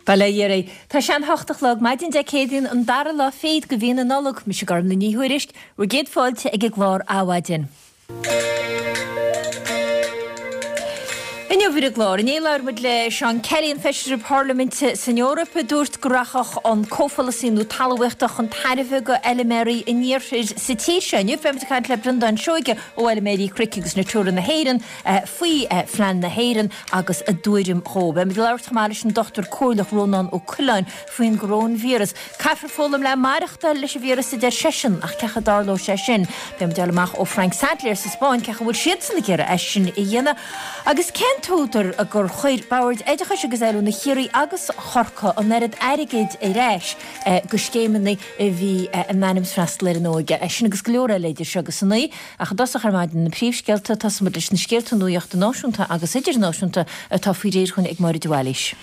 Bail ó Dhia oraibh. Tá sé an hocht a chlog, maidin Dé Céadaoin, an dara lá fichead de mhí na Nollag. Mise Gormlaith Ní Thuairisg, bhur gcéad fáilte ag an gclár Adhmhaidin. Inniu ar an gclár, inné labhair muid le Seán Kelly, an Feisire Parlaiminte san Eoraip, a dúirt go rachadh an comhpholasaí nua talmhaíochta chun tairbhe go fheilméaraí an iarthair sa tír seo. Inniu beimid ag caint le Breandán Seoige ó Fheilméaraí Cnoic agus Natura na hÉireann faoi phlean na hÉireann agus a dtuairim dhó. Beimid ag labhairt chomh maith leis an Dochtúir Comhairleach Rónán Ó Coileáin faoin gcoróinvíreas. Caithfear foghlaim le maireachtáil leis an víreas a deir seisean, ach cén chaoi a dtarlóidh sé sin? Beidh muid ag fáil amach ó Frank Sadlier sa Spáinn cén chaoi a bhfuil siadsan ag iarraidh é sin a dhéanamh. Agus cén t-údar gur chuir Boird Oideachais agus Oiliúna Chiarraí agus Chorcaí an oiread airgid ar ais go scéimeanna a bhí in ainm is freastal ar an óige? É sin agus go leor eile idir seo agus a naoi. Ach i dtosach ar maidin na príomhscéalta, tosóidh muid leis na scéalta nuachta náisiúnta agus idirnáisiúnta atá faoi réir chugainn ag Máire de Bhailís.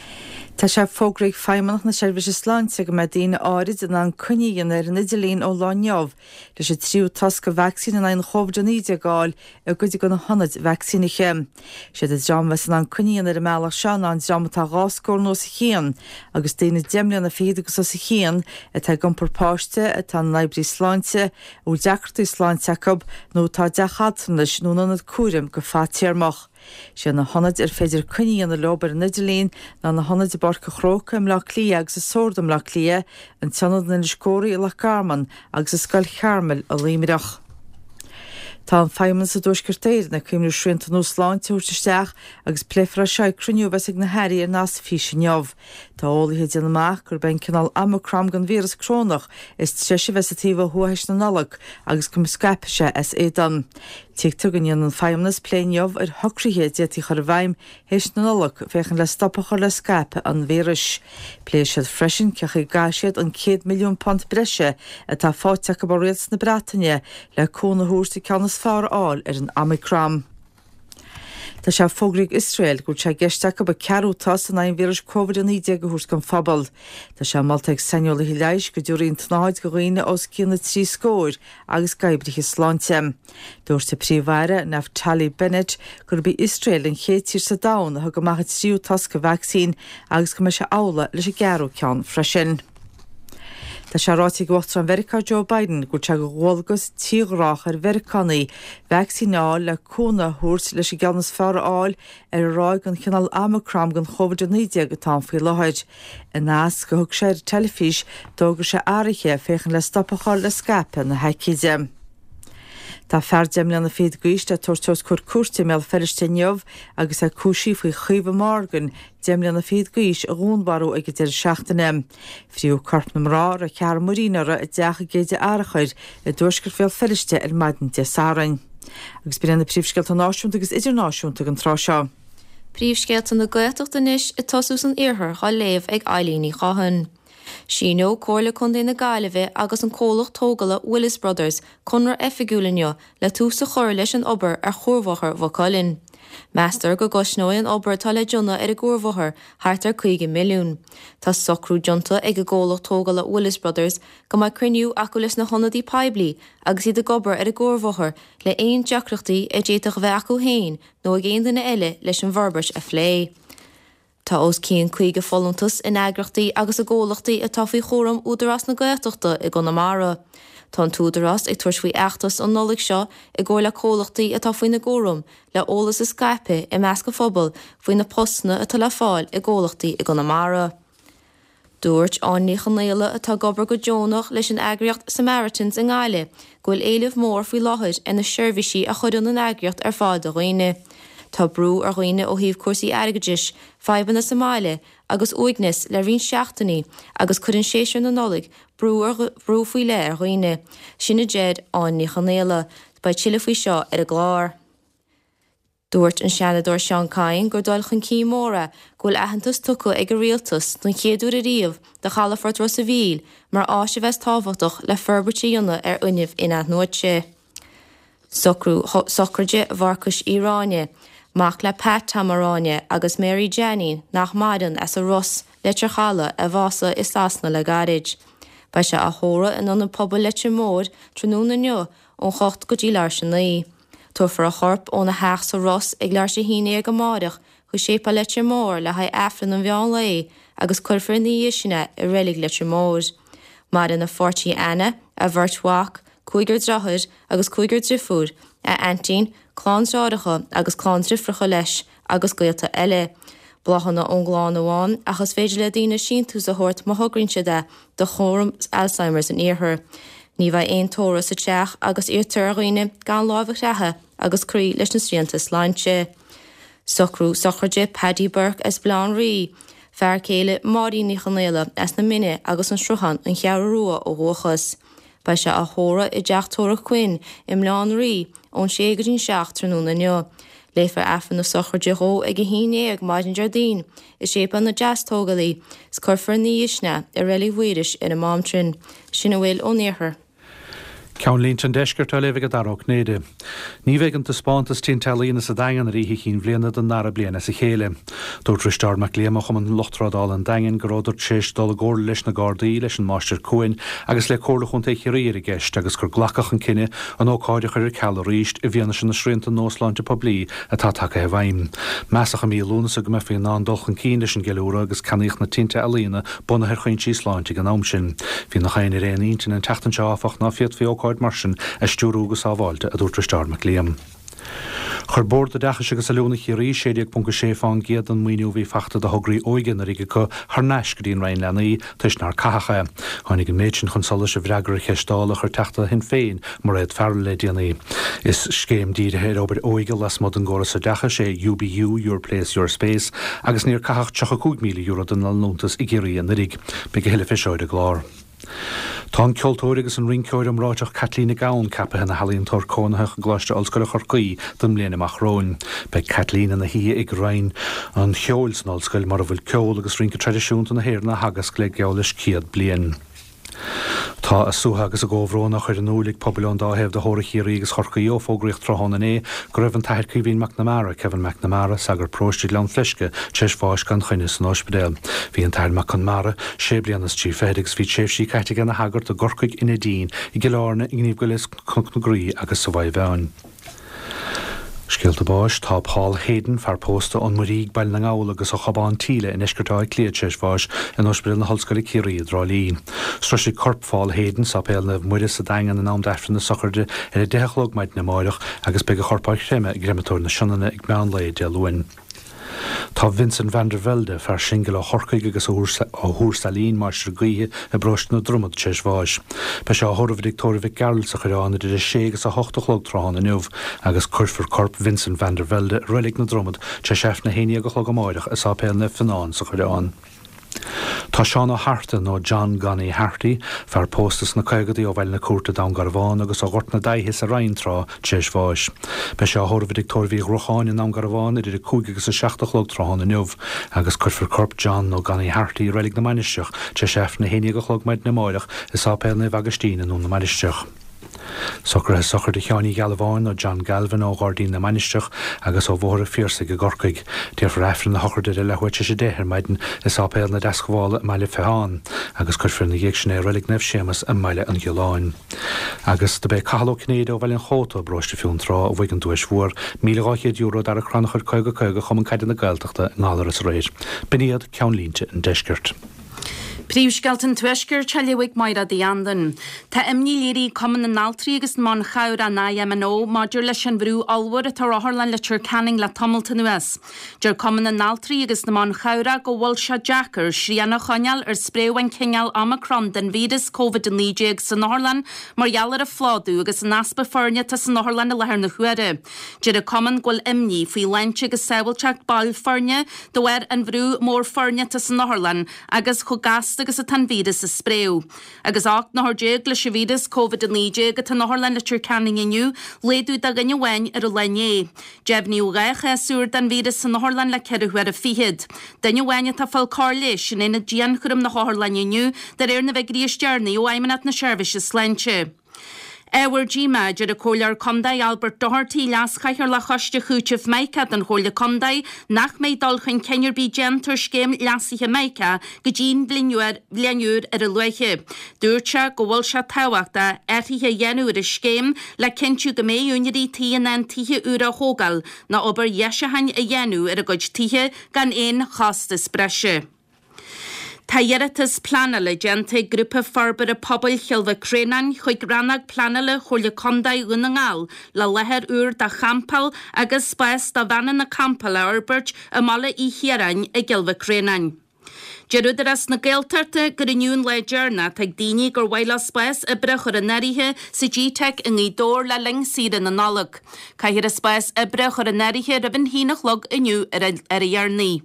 Tá sé fógraithe ag Feidhmeannacht na Seirbhíse Sláinte go mbeidh daoine áirid in ann coinne a dhéanamh ar an idirlíon ón lá inniu leis an tríú tost de vacsaín in aghaidh an Chóvid-19 a fháil i gcuid de na hionaid vacsaínithe. Siad an dream a bheas in ann coinne a dhéanamh ar an mbealach seo ná an dream atá dhá scór nó os a chionn agus daoine deich mbliana fichead agus os a chionn atá ag iompar páiste, atá ina n-oibrí sláinte, a bhfuil deacrachtaí sláinte acu nó atá i dteach altranais nó in ionad cúraim go fadtéarmach. Sé na hionaid ar féidir coinne a dhéanamh leo ar an idirlíon ná na hionaid i bPáirc an Chrócaigh i mBleá Cliath agus i Sord i mBleá Cliath, an t-ionad in Inis Córthaidh i Loch Garman agus i Scoil Charmel i Luimneach. Tá an Feidhmeannas i dTuaisceart Éireann ag cuimhniú srianta nua sláinte a thabhairt isteach agus pléifear é seo ag cruinniú a bheas ag na hairí ar nasc físe inniu. Tá eolaithe ag déanamh amach gurb é an cineál Omicron den víreas corónach is treise a bheas sa taobh ó thuaidh théis na Nollag agus go scaipfidh sé as éadan. Tuigtear go ndéanfaidh an Feidhmeannas plé inniu ar shocruithe a d'fhéadfaí a chur i bhfeidhm théis na Nollag féachaint le stop a chur le scaipeadh an víris. Pléifidh siad freisin cén chaoi a gcaithfidh siad an £100 milliún breise atá faighte acu ó Rialtas na Breataine le cúnamh a thabhairt an ceann is fearr a fháil ar an Omicron. Tá sé fógraithe ag Iosrael go bhfuil sé i gceist acu an ceathrú tost in aghaidh an víris Covid-19 a thabhairt don phobal. Tá sé molta ag saineolaithe leighis go dtabharfaí an tsnáthaid do dhaoine os cionn na dtrí scóir agus d'oibrithe sláinte. Dúirt an Príomh-Aire, Naftali Bennett, gurb í Iosrael an chéad tír sa domhan a thug amach an tríú tost de vacsaín agus go mbeidh sé amhlaidh leis an gceathrú ceann freisin. Tá sé ráite ag Uachtarán Mheiriceá Joe Biden go bhfuil sé de dhualgas tírghrách ar Mheiriceánaigh vacsaín a fháil le cúnamh a thabhairt leis an gceann is fearr a fháil ar an ráig den chineál Omicron den Chóvid-19 atá ann faoi láthair. I nasc a thug sé ar an teilifís, d'fhógair sé athruithe féachaint le stop a chur le scaipeadh na haicíde. Tá fear deich mbliana fichead d'aois le tabhairt os comhair cúirte i mBéal Feirste inniu agus é cúisithe faoi Chaoimhe Morgan, deich mbliana fichead d'aois, a dhúnmharú ag an deireadh seachtaine. Fríothadh corp na mná, a raibh ceathrar muirín uirthi, i dteach i gCéide Fhearchair i dtuaisceart Bhéal Feirste ar maidin Dé Sathairn. Agus b'in iad na príomhscéalta náisiúnta agus idirnáisiúnta ag an tráth seo. Príomhscéalta na Gaeltachta anois ag tosú san iarthar á léamh ag Eileen Ní Chatháin. Síneoidh Comhairle Contae na Gaillimhe agus an comhlacht tógála Willis Brothers conradh oifigiúil inniu le tús a chur leis an obair ar Chuarbhóthar Mhaigh Cuilinn. Meastar go gcosnóidh an obair atá le déanamh ar an gcuarbhóthar thart ar 50 milliún. Tá socrú déanta ag an gcomhlacht tógála Willis Brothers go mbeidh cruinniú acu leis na hionadaí poiblí agus iad ag obair ar an gcuarbhóthar le aon deacrachtaí a d'fhéadfadh a bheith acu féin nó ag aon duine eile leis an bhforbairt a phlé. Tá os cionn 50 folúntas in eagraíochtaí agus i gcomhlachtaí atá faoi chúram Údarás na Gaeltachta i gConamara. Tá an tÚdarás ag tabhairt faoi fheachtas an Nollaig seo i gcomhar le comhlachtaí atá faoina gcúram le eolas a scaipeadh i measc an phobail faoi na postanna atá le fáil i gcomhlachtaí i gConamara. Dúirt Áine Ní Chonaola, atá ag obair go deonach leis an eagraíocht Samaritans i nGaillimh, go bhfuil éileamh mór faoi láthair ar na seirbhísí a chuireann an eagraíocht ar fáil do dhaoine. Tá brú ar dhaoine ó thaobh cúrsaí airgeadais, fadhbanna sa mbaile agus uaigneas le roinnt seachtainí agus cuireann séasúr na Nollag brú ar brú faoi leith ar dhaoine. Sin a deir Áine Ní Chonaola. Beidh tuilleadh faoi seo ar an gclár. Dúirt an Seanadóir Seán Kyne gur dul chun cinn mór é go bhfuil aitheantas tugtha ag an Rialtas don chéad uair ariamh do chalafort Ros a' Mhíl mar áis a bheas tábhachtach le forbairt a dhéanamh ar fhuinneamh in-athnuaite. Socrú Sochraide Mharcais Uí Ráinne, mac le Pat Tom Ó Ráinne agus Mary Jeainín nach maireann as an Ros, Leitir Chalaidh, a bhásaigh i Sasana le gairid. Beidh sé á thórramh in Ionad Pobail Leitir Móir tráthnóna inniu ón 8 go dtí leathuair tar éis a 9. Tabharfar a chorp óna theach sa Ros ag leathuair tar éis a haon déag amáireach chuig Séipéal Leitir Móir le haghaidh Aifreann an mheán lae. agus cuirfear ina dhiaidh sin é i Reilig Leitir Móir. Maireann a pháirtí Anna, a bheirt mhac, cúigear deartháir agus cúigear driofúr, a aintín, clann deartháireacha agus clann driofracha leis agus gaolta eile. Bláthanna ón gclann amháin ach is féidir le daoine síntiús a thabhairt má thograíonn siad é do Chúram Alzheimer's an Iarthair. Ní bheidh aon tórramh sa teach agus iarrtar ar dhaoine gan láimh a chreathadh agus cloí leis na srianta sláinte. Socrú sochraide Paddy Burke as Baile Átha an Rí, fear céile Máirín Ní Chonaola as na Mine agus an Sruthán, An Cheathrú Rua ó dhúchas. Beidh sé á thórramh i dTeach Tórraimh Quinn i mBaile Átha an Rí ón sé go dtí'n 7 tráthnóna inniu. Léifear Aifreann na sochraide dhó ag 11 maidin Déardaoin i Séipéal na Deastógálaí is cuirfear ina dhiaidh sin é i Reilig Mhaorais ar an Máimtrin. Sin a bhfuil ón Iarthar. Ceannlínte an Deiscirt á léamh ag Dara Ó Cinnéide. Ní bheidh an taispeántas Tinte Ealaíne sa Daingean ar Oíche Chinn Bhliana don dara bliain as a chéile. Dúirt Risteárd Mac Liam ó Chumann Lucht Trádála an Daingin go rabhadar tar éis dul i gcomhairle leis na Gardaí, leis an Máistir Cuain agus le Comhairle Chontae Chiarraí ar an gceist agus gur glacadh an cinneadh an ócáid a chur ar ceal arís i bhfianaise na srianta nua sláinte poiblí atá tagtha i bhfeidhm. Measadh i mí Lúnasa go mbeifí in ann dul chun cinn leis an gceiliúradh agus ceannaíodh na tinte ealaíne bunaithe ar chuinsí sláinte ag an am sin. Bhí nach éinne ar aon intinn an tseachtain seo áfach ná féadfaí ócáid mar sin a stiúrú go sábháilte, a dúirt Risteárd Mac Liam. Chuir Bord Oideachais agus Oiliúna Chiarraí 16.6 fán gcéad den maoiniú a bhí fachta do thograí óige anuraidh acu thar n-ais go dtí an Roinn Leanaí toisc nár caitheadh é. Tháinig an méid sin chun solais i bhfreagra ar cheist Dála a chuir Teachta Shinn Féin, Mairéad Farrell le déanaí. Is scéim dírithe ar obair óige lasmuigh den gcóras oideachais é UBU, Your Place Your Space, agus níor caitheadh €35,000 den liúntas i gCiarraí anuraidh. Beidh a thuilleadh fé seo ar an gclár. Tá an ceoltóir agus an rinceoir iomráiteach Caitlín Nic Gabhann ceapaithe ina healaíontóir cónaitheach i gColáiste Ollscoile Chorcaí don mbliain amach romhainn. Beidh Caitlín ina haoi ag Roinn an Cheoil san Ollscoil mar a bhfuil ceol agus rince traidisiúnta na hÉireann á theagasc le geall leis 100 bliain. Tá a suaitheadh agus a gcomhbhrón á chur in iúil ag pobail ón dá thaobh de theorainn Chiarraí agus Chorcaí ó fógraíodh tráthnóna inné go raibh an tAthair Caoimhín Mac Namara, Kevin McNamara, sagart paróiste Ghleann Fleisce, tar éis bháis gan choinne san óispidéal. Bhí an tAthair Mac Conmara sé bliana is trí fichid agus bhí tréimhsí caite aige ina shagart i gCorcaigh, i Neidín, i gCill Airne, i nGníomh Goile is Cnoc na Graí agus sa Mhaigh Mheáin. Scéalta báis, Tá Paul Hayden, fear pósta ón Muirígh, Baile na nGall agus ó Chobán Tíle i ndeisceart Átha Cliath tar éis bháis in Ospidéal na hOllscoile Ciarraí i dTrá Lí. Sroisfidh corp Phaul Hayden Sáipéal Naomh Muire sa Daingean in am d'Aifreann na sochraide ar 10 a chlog maidin amáireach agus beidh a chorp á chreimeadh i gCreimeatóir na Sionainne ag meán lae Dé Luain. Tá Vincent van der Velde, fear singil ó Chorcaigh agus ó Thuar Sailín, máistir gaoithe i bparóiste na Dromad, tar éis bháis. Beidh sé á thórramh i dTigh Tórraimh Mhic Gearailt sa Choireán idir 6 agus 8 a chlog tráthnóna inniu agus cuirfear corp Vincent van der Velde i Reilig na Dromad tar éis Aifreann a 11 a chlog amáireach i Sáipéal Naomh Fionán sa Choireán. Tá Seán Ó hArta, nó John Gonnie Harty, fear pósta sna caogadaí ó Bhaile na Cúirte, Dún Garbhán, agus ó Ghort na Daighthe sa Rinn tráth, tar éis bháis. Beidh sé á thórramh i dTigh Tórraimh Uí Ghruacháin i nDún Garbhán idir 5 agus 7 a chlog tráthnóna inniu, agus cuirfear corp John nó Gonnie Harty i Reilig na Mainistreach tar éis Aifreann 11 a chlog maidin amáireach i Sáipéal Naomh Agaistín i nDún na Mainistreach. Socruithe sochraide Sheáin Uí Ghealbháin nó John Galvin ó Ghairdín na Mainistreach agus ó Bhóthar an Phiarsaigh i gCorcaigh. Déarfar Aifreann na sochraide ar a leathuair tar éis 10 ar maidin i Sáipéal na Deascabhála i mBaile Pheacháin agus cuirfear ina dhiaidh sin é i Reilig Naomh Séamus i mBaile an Ghiolláin. Agus do b'é Cathal Ó Cinnéide ó Bhaile an Chóta, i bparóiste Fionntrá, a bhuaigh an duais mhór, €1,200 d'fhear an Chrannchuir 50 50 Chumann Caide na Gaeltachta i nGallaras aréir. B'in iad ceannlínte an deiscirt. Príomhscéalta an Tuaiscirt á léamh ag Máire Uí Anluain. Tá imní léirithe ag Cumann na nAltraí agus na mBan Chabhrach, an IMNO, maidir leis an bhrú ollmhór atá ar Otharlann Leitir Ceanainn le tamalt anuas. Deir Cumann na nAltraí agus na mBan Chabhrach go bhfuil sé deacair srian a choinneáil ar spréadh an chineáil Omicron den víreas Covid-19 san otharlann mar gheall ar an phlódú agus an easpa foirne atá san otharlann i láthair na huaire. Deir an Cumann go bhfuil imní faoi shláinte agus sábháilteacht baill foirne De bharr an bhrú mór foirne atá san otharlann agus chomh gasta agus atá an víreas ag spréadh. Agus 18 n-othar leis an víreas Covid-19 atá in Otharlann Leitir Ceanainn inniu, laghdú de dhuine amháin ar an lá inné. Deimhníodh 2 chás úr den víreas san otharlann le ceithre huaire fichead. Duine amháin atá ag fáil cóir leighis in aonad dianchúraim na hotharlainne inniu, de réir na bhfigiúirí is deireanaí ó Fheidhmeannacht na Seirbhíse Sláinte. Ábhar díomá, a deir an Comhairleoir Contae Albert Doherty, Leas-Chathaoirleach Choiste Chúitimh Mica den Chomhairle Contae, nach mbeidh dul chun cinn ar bith déanta ar scéim leasaithe Mica go dtí'n bhliain úr ar a luaithe. Dúirt sé go bhfuil sé tábhachtach athruithe a dhéanamh ar an scéim le cinntiú go mbeidh úinéirí tí in ann tithe úra a thógáil nó obair dheisiúcháin a dhéanamh ar a gcuid tithe gan aon chostas breise. Tá iarratas pleanála déanta ag Grúpa Forbartha Pobail Chill Mhic Réanáin chuig Rannóg Pleanála Chomhairle Contae Dhún na nGall le láthair úr do champáil agus spás do veaineanna campála a fhorbairt i mBaile Uí Chiaráin i gCill Mhic Réanáin. Deir Údarás na Gaeltachta gur inniu an lá deireanach atá ag daoine gur mhaith leo spás oibre a chur in áirithe sa G-Teic i nGaoth Dobhair le linn saoire na Nollag. Caithfear an spás oibre a chur in áirithe roimh an haon a chlog inniu ar a dheireanaí.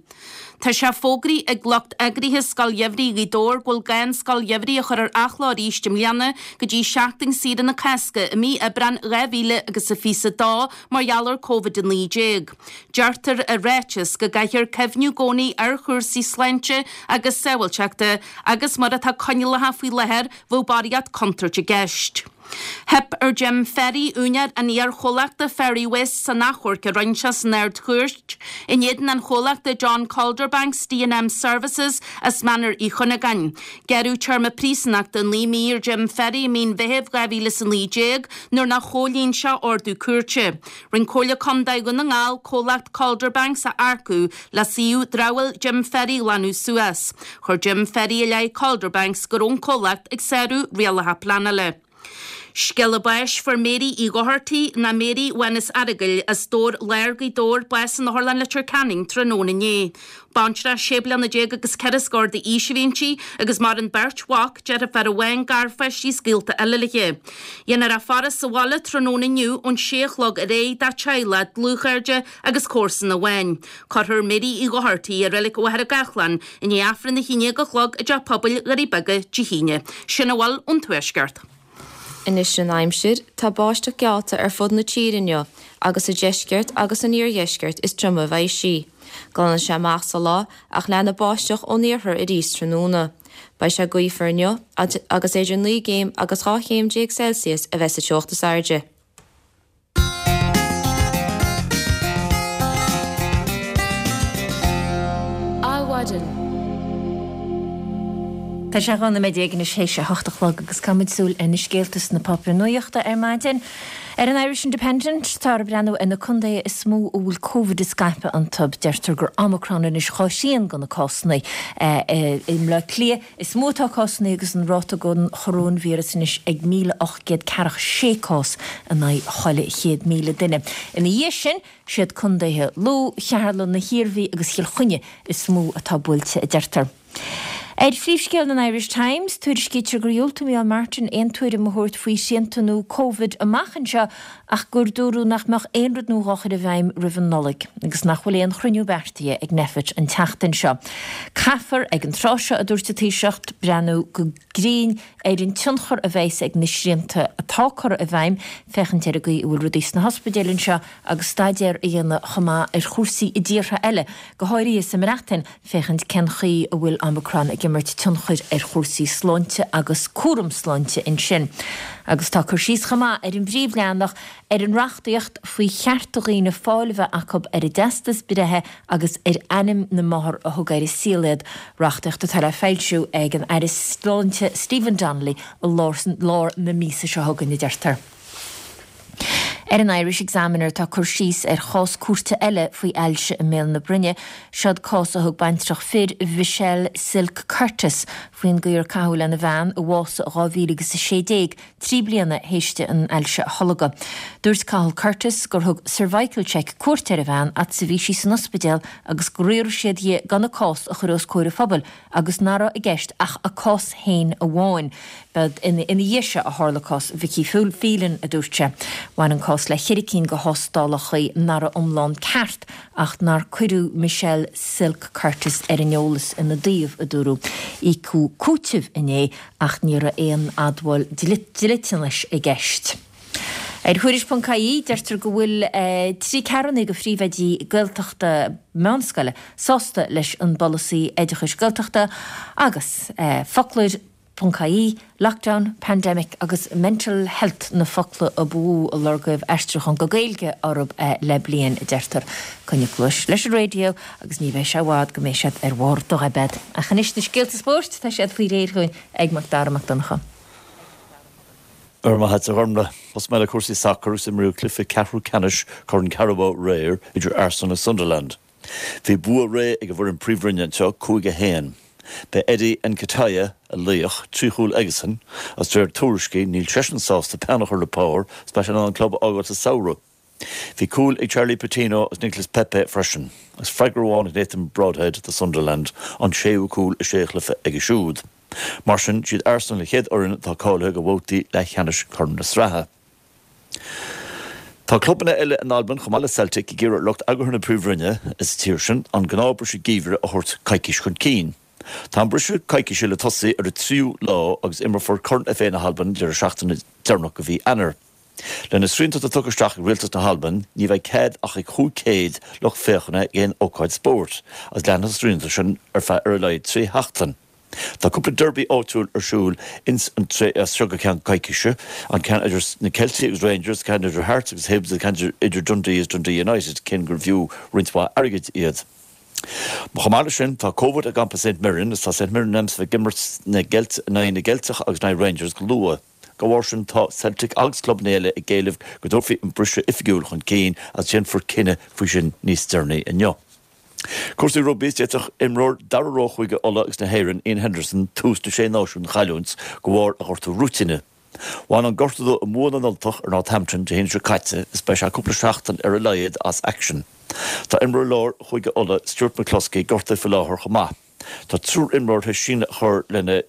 Tá sé fógraithe ag lucht eagraithe Scoil Gheimhridh Ghaoth Dobhair go bhfuil gá an Scoil Gheimhridh a chur ar athló arís i mbliana go dtí seachtain saoire na Cásca i mí Aibreán 2022 mar gheall ar Covid-19. Deirtear i ráiteas go gcaithfear cuimhniú i gcónaí ar chúrsaí sláinte agus sábháilteachta agus mar atá coinníollacha faoi láthair bheadh barraíocht contúirt i gceist. Theip ar Jim Ferry, úinéir an iar-chomhlachta Ferry Waste san achomharc a rinne sé san Ard-Chúirt in éadan an chomhlachta John Calderbanks D&M Services as Mainéar Uí Chuinneagáin. Gearradh téarma príosúnachta 9 mí ar Jim Ferry i mí an Mheithimh 2019 nuair nár chomhlíon sé ordú cúirte. Rinne Comhairle Contae Dhún na nGall comhlacht Calderbanks a earcú le suíomh dramhaíl Jim Ferry a ghlanadh suas. Chuir Jim Ferry i leith Calderbanks go raibh an comhlacht ag sárú rialacha pleanála. Scéala báis Fuair Mary Uí Dhochartaigh, nó Mary Mhánus Earagail, as Dobhar Láir, Gaoth Dobhair, bás in Otharlann Leitir Ceanainn tráthnóna inné. Baintreach sé bliana déag agus ceithre scór d'aois a bhí inti agus maireann beirt mhac, deirfiúr amháin, garpháistí is gaolta eile léi. Dhéanfar a faire sa bhaile tráthnóna inniu ón sé a chlog ar aghaidh dá teaghlach, dlúthchairde agus comharsana amháin. Cuirfear Mary Uí Dhochartaigh i Reilig Mhachaire Gathlán i ndiaidh Aifreann a haon déag a chlog i dTeach Pobail Dhoirí Beaga Dé hAoine. Sin a bhfuil ón Tuaisceart. Anois an aimsir, tá báisteach geallta ar fud na tíre inniu agus sa deisceart agus san iardheisceart is troime a bheidh sí. Glanfaidh sé amach sa lá ach leanfaidh báisteach ón iarthar arís tráthnóna. Beidh sé gaofar inniu agus idir 9 gcéim agus 12 chéim Celsius a bheidh sa teocht is airde. Adhmhaidin. Tá sé 12 nóiméad anois théis a hocht a chlog agus caithfimid súil ar na scéalta sna páipéir nuachta ar maidin. Ar an Irish Independent, táthar ag breathnú ar na contaetha is mó a bhfuil Covid ag scaipeadh iontu. Deirtear gur Omicron anois dhá thrian de na cásanna. I mBleá Cliath is mó atá cásanna agus an ráta den choróinvíreas anois ag 1,846 cás in aghaidh chuile 100,000 duine. Ina dhiaidh sin, siad contaetha Lú, Cheatharlach, na hIarmhí agus Chill Chainnigh is mó atá buailte, a deirtear. Ar phríomhscéal an Irish Times, tuairiscítear gur dhiúltaigh Micheál Martin aon tuairim a thabhairt faoi shrianta nua Covid amach anseo ach gur dúradh nach mbeadh aon rud nua dhá chur i bhfeidhm roimh an Nollaig agus nach bhfuil aon chruinniú beartaithe ag Nphet an tseachtain seo. Caithfear, ag an tráth seo, a dúirt an Taoiseach, breathnú go grinn ar an tionchar a bheas ag na srianta atá curtha i bhfeidhm, féachaint ar an gcaoi a bhfuil rudaí sna hospidéil anseo agus staidéar a dhéanamh chomh maith ar chúrsaí i dtíortha eile, go háirithe sa mBreatain, féachaint cén chaoi a bhfuil Omicron ag imirt tionchair ar chúrsaí sláinte agus cúram sláinte ansin. Agus tá cur síos chomh maith ar an bpríomhleathanach ar an reachtaíocht faoi chearta dhaoine fáil a bheith acu ar a dteastas breithe agus ar ainm na máthar a thug ar an saol iad, reachtaíocht atá le foilsiú ag an Aire Sláinte Stephen Donnelly i lár na míosa seo chugainn, a deirtear. Ar an Irish Examiner tá cur síos ar chás cúirte eile faoi ailse i mbéal na broinne. Seod cás a thug baintreach fir, Michelle Silk Curtis, faoin gcaoi ar caitheadh lena bhean, a bhásaigh i 2016, 3 bliana théis di an ailse a tholgadh. Dúirt Cathal Curtis gur thug Cervical Check cuairt ar a bhean fhad is a bhí sí san ospidéal agus gur iarr siad dhi gan a cás a chur os comhair an phobail agus nach raibh i gceist ach a cás féin amháin. Ba ina dhiaidh seo a tharla cás Vicky Phelan, a dúirt sé. Bhain an cás le cheithre cinn de thástálacha nach raibh iomlán ceart ach nár cuireadh Michelle Silk Curtis ar an eolas ina dtaobh, a dúradh. Íocadh cúiteamh inné ach ní raibh aon admháil dliteanais i gceist. Ar Thuairisc.ie, deirtear go bhfuil trí ceathrúna de phríomhoidí Gaeltachta meánscoile sásta leis an bpolasaí oideachais Gaeltachta agus foclóir. Ie, lockdown, pandemic agus mental health na focla a ba mhó a lorgaíodh aistriúchán go Gaeilge orthu le bliain, a deirtear. Coinnigh cluais leis an raidió agus ní bheidh sé i bhfad go mbeidh siad ar bharr do dhoibead. Ach anois na scéalta spóirt, tá siad faoi réir chugainn ag Mac Dara Mac Donncha. Go raibh maith agat, a Ghormfhlaith. Tosóidh mé le cúrsaí sacair agus imríodh cluiche ceathrú ceannais Chorn Carabao aréir idir Arsenal agus Sunderland. Bhí bua réidh ag an bhfoireann Príomhroinne anseo, 5-1. B'é Eddie Nketiah a laoch, 3 chúl aigesan, agus de réir tuairiscí níl seisean sásta peann a chur le pár is beidh sé in ann an club a fhágáil sa samhradh. Bhí cúil ag Charlie Patino agus Nicolas Pepe freisin, agus freagra amháin ag Nathan Broadhead do Sunderland, an séú cúl i sé chluiche aige siúd. Mar sin, siad Arsenal an chéad fhoireann atá cáilithe do bhabhtaí leathcheannais Chorn na Sraithe. Tá clubanna eile in Albain chomh maith le Celtic ag iarraidh ar lucht eagraithe na Príomhroinne sa tír sin an gnáthbhriseadh geimhridh a thabhairt coicís chun cinn. Tá an briseadh coicíse le tosaí ar an tríú lá agus imreofar Corn FA na hAlban an deireadh seachtaine deireanach de mhí Eanáir. Le na srianta atá tugtha isteach ag Rialtas na hAlban ní bheidh cead ach ag 500 lucht féachana ag aon ócáid spóirt agus leanfaidh na srianta sin ar feadh ar a laghad 3 sheachtain. Tá cúpla derby áitiúil ar siúl ins an tré as seo go ceann coicíse, an ceann idir na Ceiltigh agus Rangers, ceann idir Hearts agus Hibs agus ceann idir Dundee agus Dundee United, cinn gurbh fhiú roinnt mhaith airgid iad. Chomh maith leis sin, tá Covid i gcampa St Mirren agus tá St Mirren in ainm is a bheith ag imirt na gCeilt in aghaidh na gCeilteach agus in aghaidh Rangers go luath. Dá bharr sin, tá Celtic agus clubanna eile ag éileamh go dtabharfaí an briseadh oifigiúil chun cinn agus déanfar cinneadh faoi sin níos deireanaí inniu. Cúrsaí rugbaí, is d'fhéadfadh imreoir dara rogha Chúige Uladh agus na hÉireann, Iain Henderson, tús na Sé Náisiún a chailliúint de bharr a ghortú ruainne. Bhain an gortú dó i mbua na nUltach ar Northampton Dé hAoine seo caite is beidh sé cúpla seachtain ar a laghad as aicsean. Tá imreoir láir Chúige Uladh, Stuart McCloskey, gortaithe faoi láthair chomh maith. Tá triúr imreoir tar éis síneadh a chur lena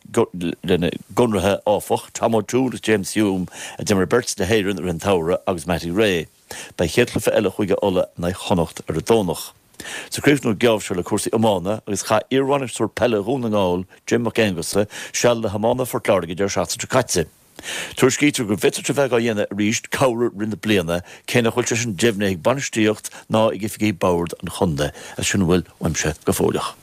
gconarthaí, áfach, Tom O'Toole agus James Hume, a d'imir beirt le hÉirinn i rith an tsamhraidh, agus Matty Ray. Beidh chéad chluiche eile Chúige Uladh in aghaidh Chonnacht ar an Domhnach. Is ag críochnú an geábh seo le cúrsaí iomána agus chaith iarbhainisteoir peile Dhún na nGall, Jim Mac Aonghusa, seal le hiománaithe Phort Láirge an deireadh seachtaine seo caite. Tuairiscítear go bhféadfadh sé bheith á dhéanamh arís corruair i rith na bliana, cé nach bhfuil sé sin deimhnithe ag bainistíocht ná ag oifigigh bord an chontae. As sin a bhfuil uaimse go fóilleach.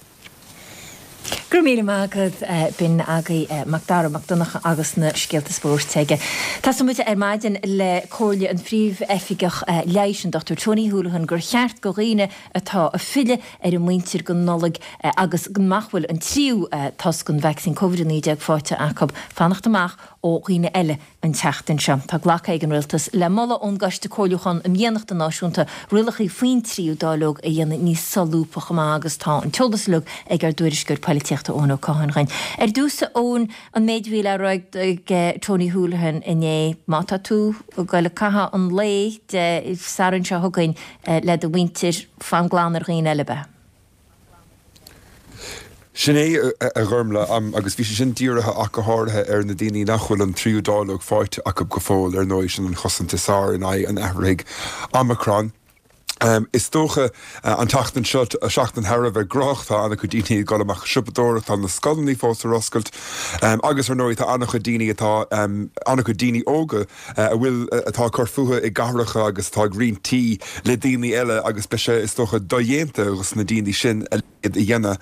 Go raibh míle maith agat. B'in agaibh Mac Dara Mac Donncha agus na scéalta spóirt aige. Tosóidh muid ar maidin le comhairle an Phríomh-Oifigeach Leighis, an Dr Tony Holohan, gur cheart go dhaoine atá ag filleadh ar a muintir don Nollaig agus nach bhfuil an tríú tost den vacsaín Covid-19 faighte acu fanacht amach ó dhaoine eile An tseachtain seo, tá glactha ag an Rialtas le moladh ón gCoiste Comhairliúcháin um Dhéanachta Náisiúnta rialacha faoin tríú dáileog a dhéanamh níos solúbtha chomh maith agus tá an t-eolas uilig ag ár dtuairisceoir poilitíochta Eoin Ó Catháin dhúinn. Ar dtús, a Eoin, an méid a bhí le rá ag Tony Holohan inné, má tá tú ag goil ag caitheamh an lae Dé Sathairn seo chugainn le do mhuintir, fan glan ar dhaoine eile, ab ea? Sin é, a Ghormfhlaith, agus bhí sé sin dírithe ach go háirithe ar na daoine nach bhfuil an tríú dáileog faighte acu go fóill, ar ndóigh, sin an chosaint is fearr in aghaidh an athraithigh Omicron. Is dócha an tseachtain seo, seachtain thar a bheith gnóthach, tá an-chuid daoine ag dul amach ag siopadóireacht, tá na scoileanna fós ar oscailt agus ar ndóigh tá an-chuid daoine atá, an-chuid daoine óga a bhfuil, atá ag cur fúthu i gcathracha agus atá ag roinnt tí le daoine eile agus beidh sé, is dócha, dodhéanta dos na daoine sin a leithéid a dhéanamh.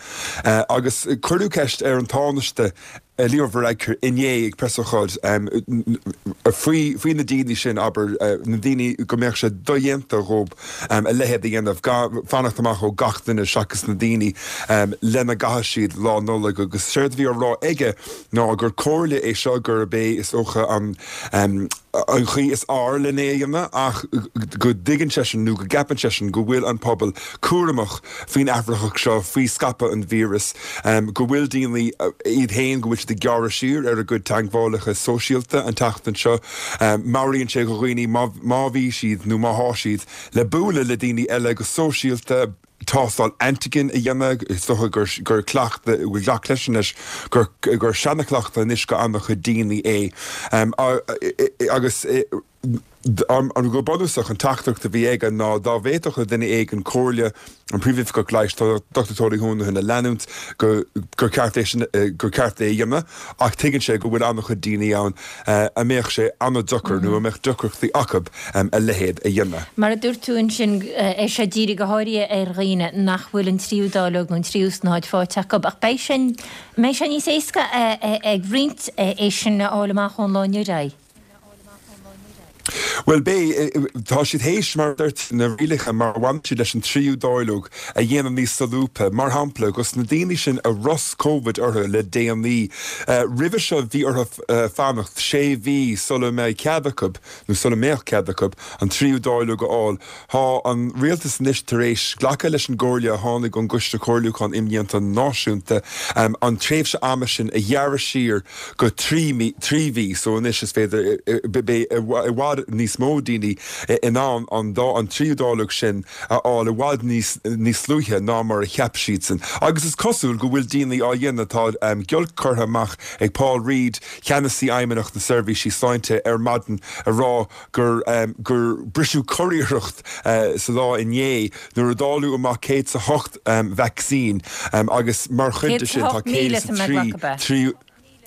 Agus cuireadh ceist ar an Tánaiste Leo Varadkar inné ag preasócáid faoi, faoi na daoine sin, abair, na daoine go mbeadh sé dodhéanta dhóibh a leithéid a dhéanamh, fanacht amach ó gach duine seachas na daoine lena gcaithfidh siad Lá Nollag agus séard a bhí á rá aige ná gur comhairle é seo gurb é is dócha an an chaoi is fhearr len é a dhéanamh ach go dtuigeann seisean nó go gceapann seisean go bhfuil an pobal cúramach faoin athraitheach seo, faoi scaipeadh an víreas, go bhfuil daoine iad féin, go bhfuil siad ag gearradh siar ar a gcuid teagmhálacha sóisialta an tseachtain seo. Meabhraíonn sé do dhaoine má má bhí siad nó má thá siad le bualadh le daoine eile go sóisialta, tástáil antigen a dhéanamh, is dócha gur gur cleachtadh, bhfuil gach leis anois, gur gur seanachleachtadh anois go an-chuid daoine é. Agus an go bunúsach an teachtaireacht a bhí aige ná dá bhféadfadh duine éigin comhairle an Príomhoifigeach Leighis, Dr Tony Holohan a leanúint, go gur ceart é sin gur ceart é a dhéanamh ach tuigeann sé go bhfuil an-chuid daoine ann a mbeadh sé an-deacair nó a mbeadh deacrachtaí acu a leithéid a dhéanamh. Mar a dúirt tú ansin, é seo dírithe go háirithe ar dhaoine nach bhfuil an tríú dáileog nó an tríú snáthaid faighte acu, ach beidh sé, mbeidh sé níos éasca ag roinnt é sin a fháil amach ón lá inniu ar aghaidh? Bhuel, beidh. Tá siad théis, mar a dúirt, na rialacha mar a bhaineann siad leis an tríú dáileog a dhéanamh níos solúbtha. Mar shampla, dos na daoine sin a rosc Covid orthu le déanaí, roimhe seo bhí orthu fanacht sé mhí sula mbeidh cead acu, nó sula mbeadh cead acu, an tríú dáileog a fháil. Tá an rialtas anois tar éis glacadh leis an gcomhairle a tháinig ón gCoiste Comhairliúcháin Imdhíonta Náisiúnta an tréimhse ama sin a ghearradh siar go 3 mí, 3 mhí, so anois is féidir, beidh i bhfad níos mó daoine in ann an dá, an tríú dáileog sin a fháil i bhfad níos, níos luaithe ná mar a cheap siadsan. Agus is cosúil go bhfuil daoine á dhéanamh, tá giolc curtha amach ag Paul Reid, Ceannasaí Fheidhmeannacht na Seirbhísí Sláinte ar maidin a rá gur, gur briseadh curiarracht sa lá inné nuair a dáileadh amach 108 vacsaín agus mar chuid de sin tá 108,000 103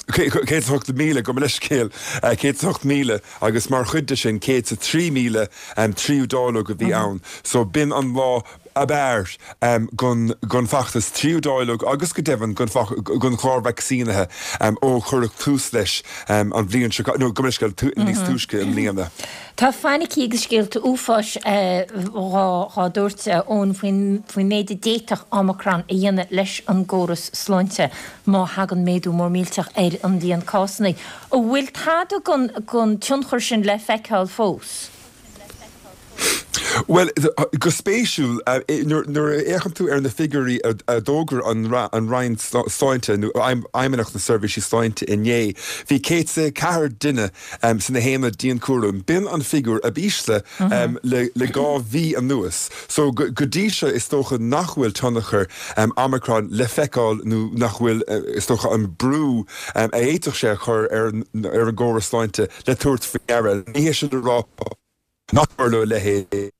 108,000, gabh mo leithscéal, 108,000 agus mar chuid de sin 103,000 tríú dáileog a bhí ann. So b'in an lá ab fhearr don bhfeachtas tríú dáileog agus go deimhin don chlár vacsaínithe ó cuireadh tús leis an bhliain seo, nó gabh mo leithscéal, níos túisce i mbliana. Tá fainicí agus scéalta uafáis dhá dtabhairt, Eoin, faoin méid a d'fhéadfadh Omicron a dhéanamh leis an gcóras sláinte má thagann méadú mór millteach ar an líon cásanna. An bhfuil tada den tionchar sin le feiceáil fós? Bhuel, go spéisiúil, nuair a fhéachann tú ar na figiúirí a d'fhógair an Roinn Sláinte, nó Fheidhmeannacht na Seirbhísí Sláinte inné, bhí 104 duine sna haonaid dianchúraim. B'in an figiúr ab ísle le 2 mhí anuas. So, go dtí seo, is dócha nach bhfuil tionchar Omicron le feiceáil nó nach bhfuil, is dócha, an brú a fhéadfadh sé a chur ar an gcóras sláinte le tabhairt faoi deara. Ní hé sin le rá nach dtarlódh a leithéid.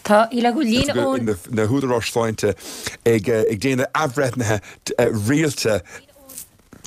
Tá le go líne ón. na húdaráis sláinte ag déanamh athbhreithnithe rialta.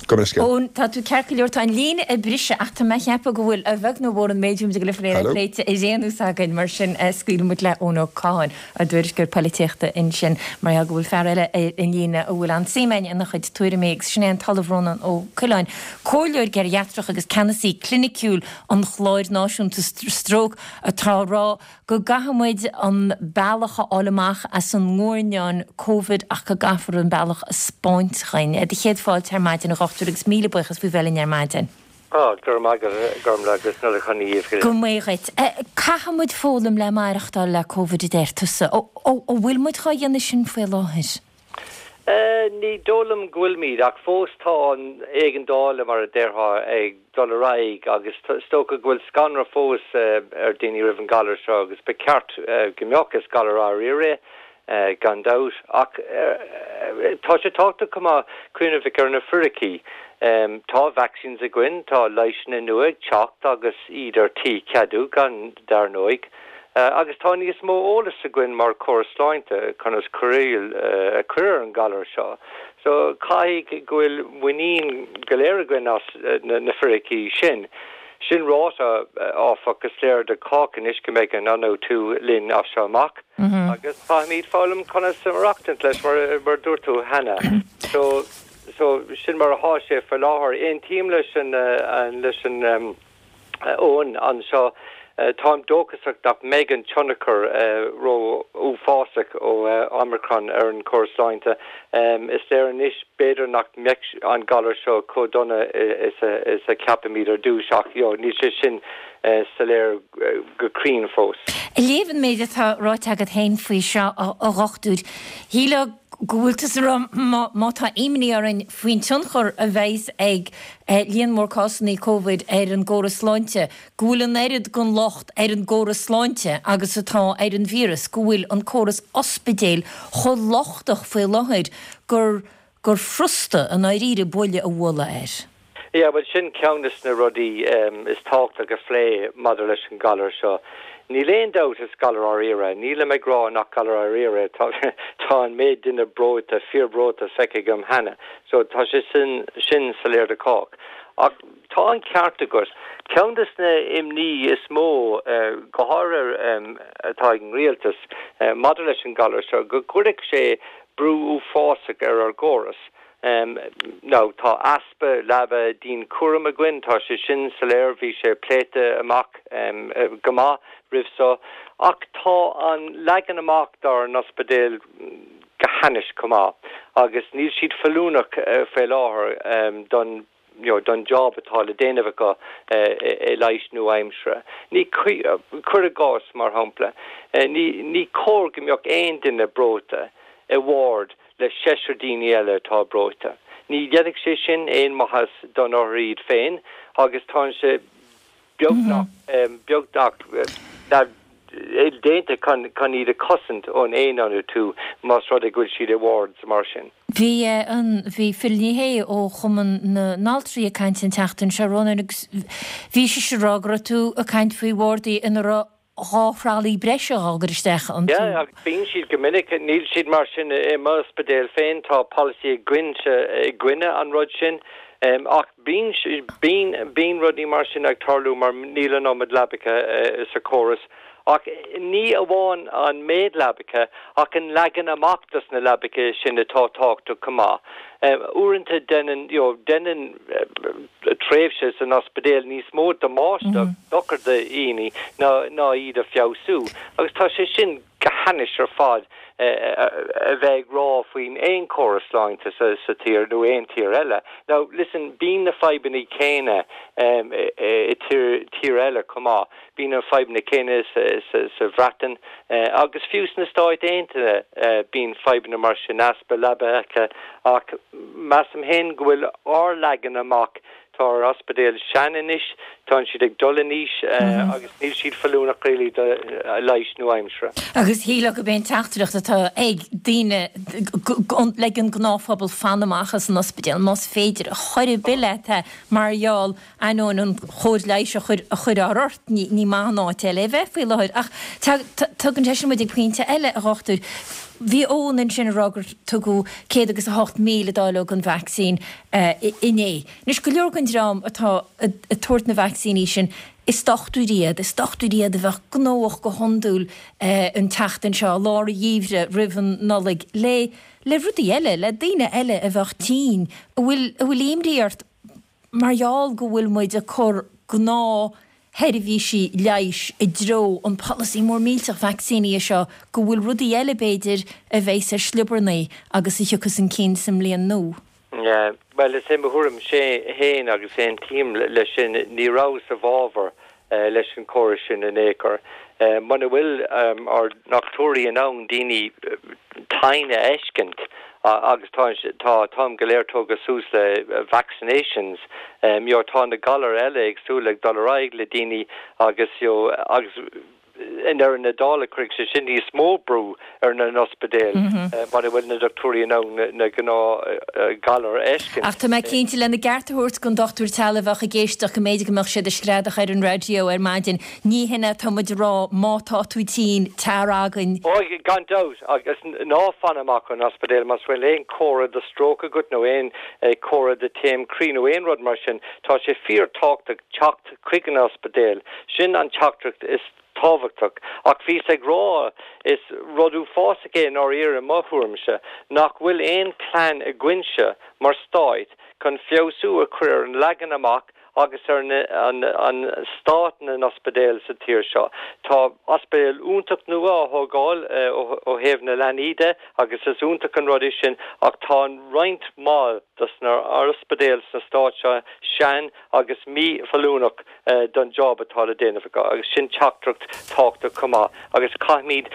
Gabh mo leithscéal. Eoin, tá tú ceart go leor. Tá an líne ag briseadh ach tá mé ag ceapadh go bhfuil, a bheag nó a mhór, an méid a bhí muid ag dul a phlé pléite ar aon nós againn. Mar sin, scaoilfidh muid le Eoin Ó Catháin, ár dtuairisceoir polaitíochta ansin, mar gheall go bhfuil fear eile ar an líne a bhfuil an-suim againn ina chuid tuairimí agus sin é an tOllamh Rónán Ó Coileáin, Comhairleoir geiriatrach agus ceannasaí cliniciúil an Chláir Náisiúnta Stróc atá ag rá go gcaithfidh muid an bealach a fháil amach as an nguairneán Covid ach go gcaithfear an bealach a 'spáint dhuinn. Do chéad fáilte ar maidin, a dhochtúir, agus míle buíochas faoi bheith linn ar maidin. Á, go raibh maith agat, Gormlaith, agus Nollaig shona dhaoibh go léir. Go mbeidh dhuit. Caithfidh muid foghlaim le maireachtáil le Covid a deir tusa. An bhfuil muid dhá dhéanamh sin faoi láthair? Ní dóigh liom go bhfuilimid, ach fós tá an éigeandáil, mar a déarfá, ag dul ar aghaidh agus is dócha go bhfuil scanradh fós ar daoine roimh an galar seo agus ba cheart go mbeadh, is galar dáiríre é gan dabht. Ach tá sé tábhachtach chomh maith cuimhneamh ar na fíricí. Tá vaccines againn, tá leigheasanna nua ag teacht agus iad ar tí ceadú gan dar ndóigh. Agus tá níos mó eolais againn mar chóras sláinte conas cóireáil a chur ar an galar seo. So caithfidh go bhfuil muinín go léir againn as na fíricí sin. Sin ráite, áfach, is léir do chách anois go mbeidh an ionfhabhtú linn as seo amach agus caithfimid foghlaim conas maireachtaint leis mar a dúirt tú cheana. So so sin mar atá sé faoi láthair. Aontaím leis an leis an. Eoin anseo. Táim dóchasach nach mbeidh an tionchar ró-uafásach ó Omicron ar an chóras sláinte. Is léir anois b'fhéidir nach mbeadh an galar seo chomh dona is a cheapaimid ar dtús ach níl sé sin soiléir go cruinn fós. Ag léamh an méid atá ráite agat féin faoi seo, a dhochtúir, shílfeá go bhfuil tusa ag rá má tá imní orainn faoin tionchar a bheas ag líon mór cásanna Covid ar an gcóras sláinte, go bhfuil an oiread den locht ar an gcóras sláinte agus atá ar an víreas, go bhfuil an córas ospidéil chomh lochtach faoi láthair gur gur furasta i ndáiríre buille a bhualadh air. Yeah, bhuel sin ceann des na rudaí is tábhachtach a phlé maidir leis an galar seo. Níl aon dabht is galar dáiríre é. Nílim ag rá nach galar dáiríre é, tá tá an méid duine breoite, fíor-bhreoite feicthe agam cheana. So tá sé sin sin soiléir do chách. Ach tá an ceart agat. Ceann des na imní is mó, go háirithe atá ag an rialtas maidir leis an galar seo, go gcuirfeadh sé brú uafásach ar ár gcóras. Now tá easpa leaba dianchúraim againn, tá sé sin soiléir, bhí sé pléite amach go maith roimh so, ach tá an leagan amach dár n-ospidéil go hainnis chomh maith agus níl siad feiliúnach faoi láthair don you know, don job atá le déanamh acu i leighis nua-aimseartha. Ní, cuir i gcás, mar shampla, ní, ní cóir go mbeadh aon duine breoite i ward le seisear daoine eile atá breoite. Ní dhéanfaidh sé sin aon mhaitheas don othar iad féin agus tá sé beagnach, beagnach déanta chun iad a chosaint ón aon-ionfhabhtú más rud é go bhfuil siad i wards mar sin. Bhí an, bhí Phil Ní Sheaghdha ó Chumann na nAltraí ag caint an tseachtain seo, Rónán, agus bhí sise ag rá go raibh tú ag caint faoi bhardaí ina raibh 2 thralaí breise á gcur isteach iontu. Yeah, agus bíonn siad go minic, níl siad mar sin i m'ospidéal féin, tá polasaí againne i gcoinne an rud sin, ach bíonn, bíonn, bíonn rudaí mar sin ag tarlú mar níl an iomad leabacha sa chóras. Ach ní amháin an méid leabacha ach an leagan amach dos na leabacha sin atá tábhachtach chomh maith. Uaireanta déanann, you know, déanann tréimhse san ospidéal níos mó damáiste agus dochar do dhaoine ná ná iad a feabhsú. Agus tá sé sin go hainnis ar fad a bheith ag rá faoin aon chóras sláinte sa sa tír nó aon tír eile. Now listen, bíonn na fadhbanna céanna i tír tír eile chomh maith. Bíonn na fadhbanna céanna sa Bhreatain agus fiú sna Stáit Aontaithe bíonn fadhbanna mar sin, easpa leabacha, ach measaim féin go bhfuil ár leagan amach, tá ár ospidéil sean anois, tá siad ag dul in aois agus níl siad feiliúnach really do leighis nua-aimseartha. Agus shílfeá gurb é an teachtaireacht atá ag daoine le an gnáthphobal fan amach as an ospidéal más féidir, chor ar bith leat é mar gheall Ainneoin an chóir leighis a chur ort, ní maith an áit eile a bheith faoi láthair. Ach tugann sé sin muid ag pointe eile, a dhochtúir. Bhí Eoin ansin ag rá gur tugadh céad agus 8,000 dáileog den vacsaín inné. Anois, go leor den dream atá ag tabhairt na vacsaíní sin, is dochtúirí iad, is dochtúirí iad a bheadh gnóthach go hiondúil an tseachtain seo, lár an gheimhridh, roimh an Nollaig, le le rudaí eile, le daoine eile a bheadh tinn, a bhfuil a bhfuil imní ort. Mar gheall go bhfuil muid ag cur gnáthsheirbhísí leighis i dtreo an polasaí mór millteach vacsaíní seo, go bhfuil rudaí eile, b'fhéidir, a bheas ar sliobarnaí agus a thiocfas chun cinn sa mbliain nua. Yeah, bhuel, is é mo thuairimse féin agus aontaím leis sin, ní rabhas i bhfabhar leis an chóras sin in aon chor. Muna bhfuil ár ndochtúirí in ann daoine tinn a fheiscint agus tá tá an t-am go léir tógtha suas le vaccinations, you know, tá na galair eile éagsúla ag dul ar aghaidh le daoine agus you know, agus i ndeireadh na dála cuirfidh sé sin níos mó brú ar na n-ospidéil muna bhfuil na dochtúirí in ann na gnáth ghalair a fheiscint. Ach tá mé cinnte, lena gceart a thabhairt don dochtúir teaghlaigh a bheadh ag éisteacht, go mb'fhéidir go mbeadh siad ag screadach ar an raidió ar maidin, ní hin é atá muid a rá, má tá tú tinn, tar againn. Ó, gan dabht, agus ná fan amach ón ospidéal más bhfuil aon chomhartha de stróc agat nó aon chomhartha de taom croí nó aon rud mar sin, tá sé fíor tábhachtach teacht chuig an ospidéal. Sin an teachtaireacht is tábhachtach. Ach bhíos ag rá, is rud uafásach é i ndáiríre i mo thuairimse, nach bhfuil aon plean againnse mar stát chun feabhsú a chur ar an leagan amach agus ar an stát na n-ospidéal sa tír seo. Tá ospidéal iontach nua á thógáil ó thaobh na leanaí de agus is iontach an rud é sin ach tá roinnt mhaith dos na ospidéil sna stáit seo sean agus mífheiliúnach don job atá le déanamh acu agus sin teachtaireacht tábhachtach chomh maith agus caithfimid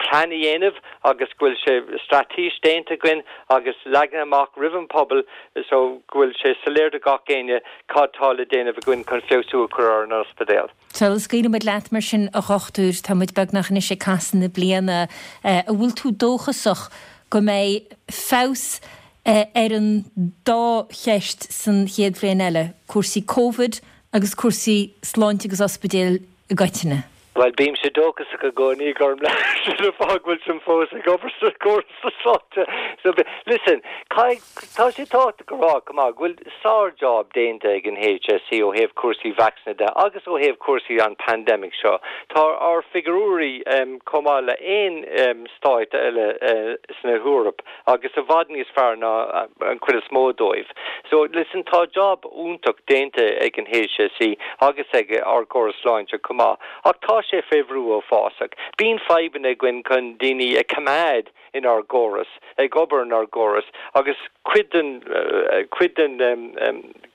plean a dhéanamh agus go bhfuil sé straitéis déanta againn agus leagtha amach roimh an pobal so go bhfuil sé soiléir do gach éinne cad tá le déanamh againn chun feabhsú a chur ar an ospidéal. Sula scaoileann muid leat mar sin a dhochtúir, tá muid beagnach anois ag casadh na bliana, an bhfuil tú dóchasach go mbeidh feabhas ar an dá cheist san chéad bhliain eile, cúrsaí Covid agus cúrsaí sláinte agus ospidéil i gcoitinne. Bhuel, bímse dóchasach i gcónaí, Gormlaith, sin an fáth go bhfuilim fós ag obair sa gcóras sláinte. So, listen, caithfidh, tá sé tábhachtach a rá chomh maith go bhfuil sár-job déanta ag an HSE ó thaobh cúrsaí vacsaíne de agus ó thaobh cúrsaí an pandemic seo. Tá ár figiúirí chomh maith le aon stáit eile sna hEoraip agus i bhfad níos fearr ná an chuid is mó dóibh. So, listen, tá job iontach déanta ag an HSE agus ag ár gcóras sláinte chomh maith, ach tá sé fé bhrú uafásach. Bíonn fadhbanna againn chun daoine a choimeád inár gcóras, ag obair inár gcóras, agus cuid den, cuid den,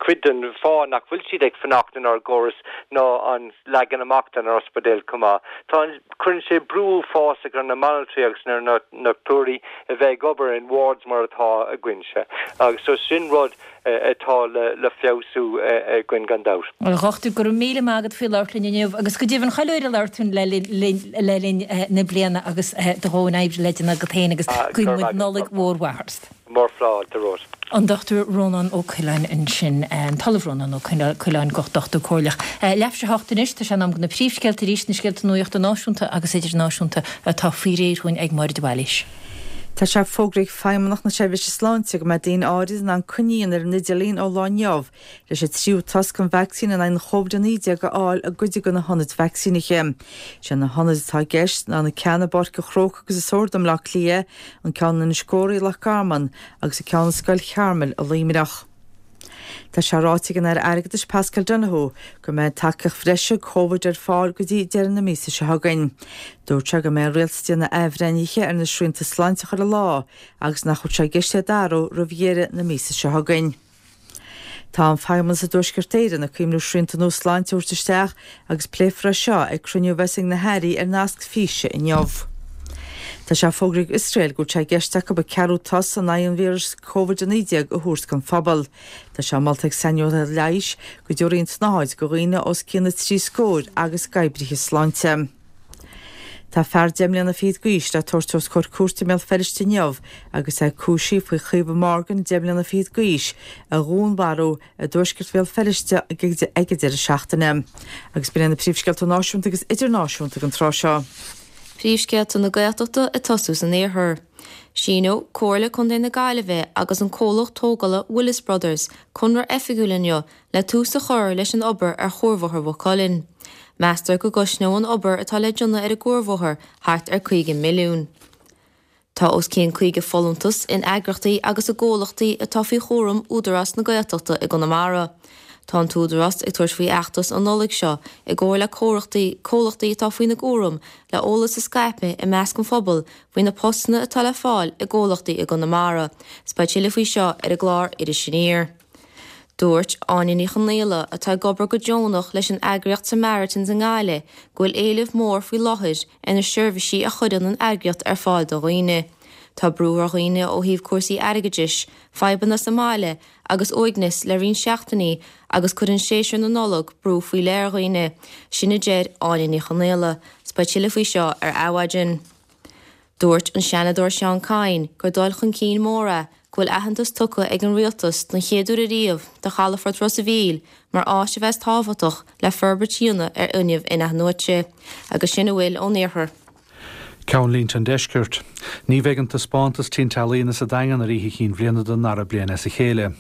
cuid den fáth nach bhfuil siad ag fanacht inár gcóras ná an leagan amach den ospidéal chomh maith. Tá an, cuireann sé brú uafásach ar na banaltraí agus ar na dochtúirí a bheith ag obair in wards mar atá againnse agus so sin rud atá le feabhsú againn gan dabht. A dhochtúir, go raibh míle maith agat faoi labhairt linn inniu agus go deimhin chuile uair a labhair tú le linn na bliana agus do dhóthain oibre le déanamh agat féin agus guíonn muid Nollaig mhór mhaith ort. Mórfháilte romhat. An Dr Rónán Ó Coileáin ansin, an tOllamh Rónán Ó Coileáin, Dochtúir Comhairleach. Leathuair tar éis a hocht anois, tá sé in am do na príomhscéalta arís, na scéalta nuachta náisiúnta agus idirnáisiúnta atá faoi réir dhúinn ag Máire de Bhailís. Tá sé fógraithe ag Feidhmeannacht na Seirbhíse Sláinte go mbeidh daoine áirid in ann coinní a dhéanamh ar an idirlíon ó lá inniu leis an tríú toasc den vacsaín in aghaidh an Covid-19 a fháil i gcuid de na hionaid vacsaínithe. Sé na hionaid atá i gceist ná na ceanna i bPáirc an Chrócaigh agus i Sord i mBleá Cliath, an ceann in Inis Górraí i Loch Garman agus an ceann i Scoil Chearmail i Luimneach. Tá sé ráite ag an Aire Airgeadais Paschal Donohoe go mbeidh tacaíocht bhreise Covid ar fáil go dtí deireadh na míosa seo chugainn. Dúirt sé go mbeidh an Rialtas ag déanamh athbhreithnithe ar na srianta sláinte chuile lá agus nach bhfuil sé i gceist iad a athrú roimh dheireadh na míosa seo chugainn. Tá an Feidhmeannas i dTuaisceart Éireann ag cuimhniú srianta nua sláinte a thabhairt isteach agus pléifear é seo ag cruinniú a bheas ag na hairí ar nasc físe inniu. Tá sé fógraithe ag Iosrael go bhfuil sé i gceist acu an ceathrú toas in aghaidh an víris Covid-19 a thabhairt don phobal. Tá sé molta ag saineolaithe leighis go dtabharfaí an tsnáthaid do dhaoine os cionn na dtrí scóir agus d'oibrithe sláinte. Tá fear deich mbliana fichead d'aois le tabhairt os comhair cúirte i mBéal Feirste inniu agus é cúisithe faoi Chaoimhe Morgan, deich mbliana fichead d'aois, a dhúnmharú i dtuaisceart Bhéal Feirste ag an deireadh seachtaine. Agus b'in iad na príomhscéalta náisiúnta agus idirnáisiúnta ag an tráth seo. Príomhscéalta na Gaeltachta ag tosú san iarthar. Síneoidh Comhairle Contae na Gaillimhe agus an comhlacht tógála Willis Brothers conradh oifigiúil inniu le tús a chur leis an obair ar Chuarbhóthar Mhaigh Cuilinn. Meastar go gcosnóidh an obair atá le déanamh ar an gcuarbhóthar thart ar 50 milliún. Tá os cionn 50 folúntas in eagraíochtaí agus i gcomhlachtaí atá faoi chúram Údarás na Gaeltachta i gConamara. Tá an tÚdarás ag tabhairt faoi fheachtas an Nollaig seo i gcomhar le comhlachtaí atá faoina gcúram le eolas a scaipeadh i measc an phobail faoi na postanna atá le fáil i gcomhlachtaí i gConamara. 'S beidh tuilleadh faoi seo ar an gclár Iris Aniar. Dúirt Áine Ní Chonaola, atá ag obair go deonach leis an eagraíocht Samaritans i nGaillimh, go bhfuil éileamh mór faoi láthair ar na seirbhísí a chuireann an eagraíocht ar fáil do dhaoine. Tá brú ar dhaoine ó thaobh cúrsaí airgeadais, fadhbanna sa mbaile agus uaigneas le roinnt seachtainí agus cuireann séasúr na Nollag brú faoi leith ar dhaoine, sin a deir Áine Ní Chonaola. 'S beidh tuilleadh faoi seo ar Adhmhaidin. Dúirt an Seanadóir Seán Kyne gur dul chun cinn mór é go bhfuil aitheantas tugtha ag an Rialtas don chéad uair ariamh do chalafort Ros a' Mhíl mar áit a bheas tábhachtach le forbairt a dhéanamh ar fhuinneamh in-athnuaite. Agus sin a bhfuil ón iarthar. Ceannlínte an Deiscirt. Ní bheidh an taispeántas tintealaíona sa Daingean ar Oíche Chinn Bhliana don ndara bliain as a chéile.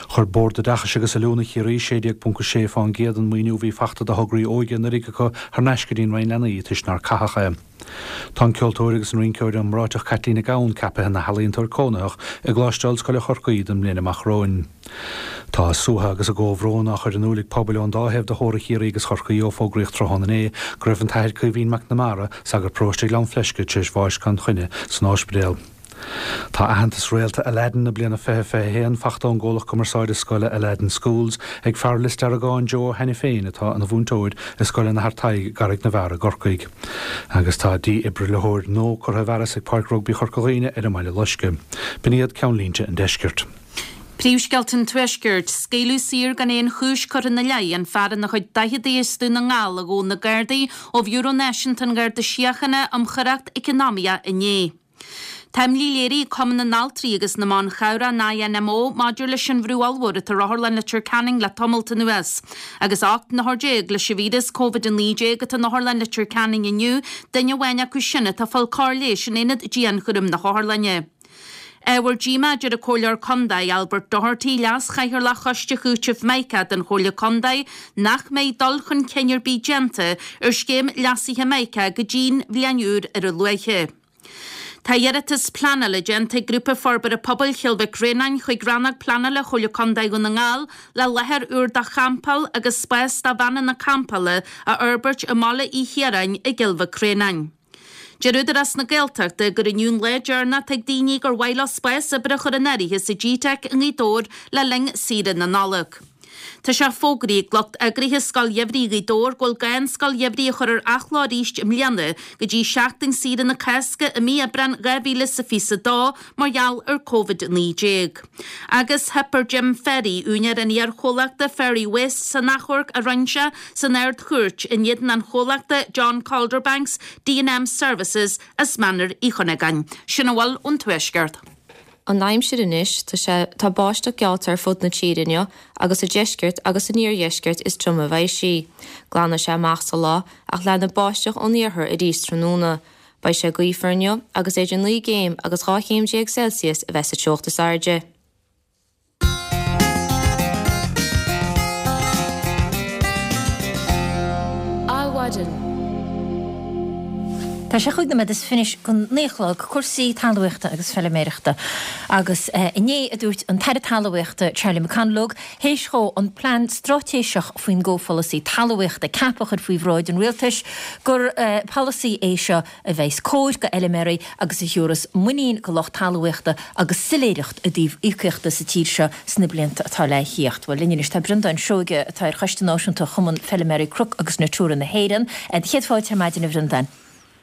Chuir Bord Oideachais agus Oiliúna Chiarraí 16.6% den maoiniú a bhí fachta do thograí óige anuraidh acu thar n-ais go dtí an Roinn Leanaí toisc nár caitheadh é. Tá an ceoltóir agus an rinceoir iomráiteach Caitlín Nic Gabhann ceaptha ina healaíontóir cónaitheach i gColáiste Ollscoile Chorcaí don mbliain amach romhainn. Tá a suaitheadh agus a gcomhbhrón á chur in iúl ag pobail ón dá thaobh de theorainn Chiarraí agus Chorcaí ó fógraíodh tráthnóna inné go raibh an tAthair Caoimhín McNamara, sagart paróiste Ghleann Fleisce, tar éis bháis gan choinne san ospidéal. Tá aitheantas Réalta Aladdin na bliana 2021 fachta ón gcomhlacht cumarsáide scoile Aladdin Schools ag fear Lios Deargáin Joe Ó hAiniféin atá ina mhúinteoir i Scoil an Athar Tadhg i gCarraig na bhFear i gCorcaigh. Agus tá dífhibrileoir nua curtha i bhfearas ag Páirc Rugbaí Chorca Dhuibhne ar an mBaile Loiscthe. B'in iad ceannlínte an deiscirt. Príomhscéalta an Tuaiscirt, Scaoileadh saor gan aon chúis curtha ina leith an fear ina chuid daicheadaí as Dún na nGall a ghabh na Gardaí ó Bhiúró Náisiúnta an Gharda Síochána um Choireacht Eacnamaíoch inné. Tá imní léirithe ag Cumann na nAltraí agus na mBan Chabhrach, an INMO, maidir leis an bhrú ollmhór atá ar Otharlann Leitir Ceanainn le tamalt anuas. Agus 18 n-othar leis an víreas Covid-19 atá in Otharlann Leitir Ceanainn inniu, duine amháin acu sin atá ag fáil cóir leighis in aonad dianchúraim na hotharlainne. Ábhar díomá, a deir an Comhairleoir Condae, Albert Doherty, Leas-Chathaoirleach Choiste Chúitimh Mica den Chomhairle Condae, nach mbeidh dul chun cinn ar bith déanta ar scéim leasaithe Mica go dtí'n bhliain úr ar a luaithe. Tá iarratas pleanála déanta ag Grúpa Forbartha Pobail Chill Mhic Réanáin chuig Rannóg Pleanála Chomhairle Condae Dhún na nGall le láthair úr do champáil agus spás do veaineanna campála a fhorbairt i mBaile Uí Chiaráin i gCill Mhic Réanáin. Deir Údarás na Gaeltachta gur inniu an lá deireanach atá ag daoine gur mhaith leo spás oibre a chur in áirithe sa G-Teic i nGaoth Dobhair le linn saoire na Nollag. Tá sé fógraithe ag lucht eagraithe Scoil Gheimhridh Ghaoth Dobhair go bhfuil gá an Scoil Gheimhridh a chur ar athló arís i mbliana go dtí seachtain saoire na Cásca i mí Aibreán 2022 mar gheall ar Covid-19. Agus theip ar Jim Ferry, úinéir an iar-chomhlachta Ferry Waste san achomharc a rinne sé san Ard-Chúirt in éadan an chomhlachta John Calderbanks D&M Services as Mainír Uí Chuinneagáin. Sin a bhfuil ón Tuaisceart. An aimsir anois, tá sé, tá báisteach geallta ar fud na tíre inniu agus sa deisceart agus san iardheisceart is troime a bheidh sí. Glanfaidh sé amach sa lá ach leanfaidh báisteach ón iarthar arís tráthnóna. Beidh sé gaofar inniu agus idir 9 gcéim agus 12 chéim Celsius a bheidh sa teocht is airde. Adhmhaidin. Tá sé chúig nóiméad is fiche go naoi a chlog, cúrsaí talmhaíochta agus feiliméireachta. Agus inné a dúirt an tAire Talmhaíochta Charlie McConalogue, théis dhó an plean straitéiseach faoin gcomhpholasaí talmhaíochta CAP a chur faoi bhráid an rialtais, gur polasaí é seo a bheas cóir go fheiliméaraí agus a thiúrfas muinín go lucht talmhaíochta agus soiléireacht i dtaobh íocaíochta sa tír seo sna blianta atá le thíocht. Bhuel, linn anois tá Breandán Seoige atá ar Choiste Náisiúnta Chumann Feiliméaraí Cnoc agus Natura na hÉireann. Céad fáilte ar maidin a Bhreandáin.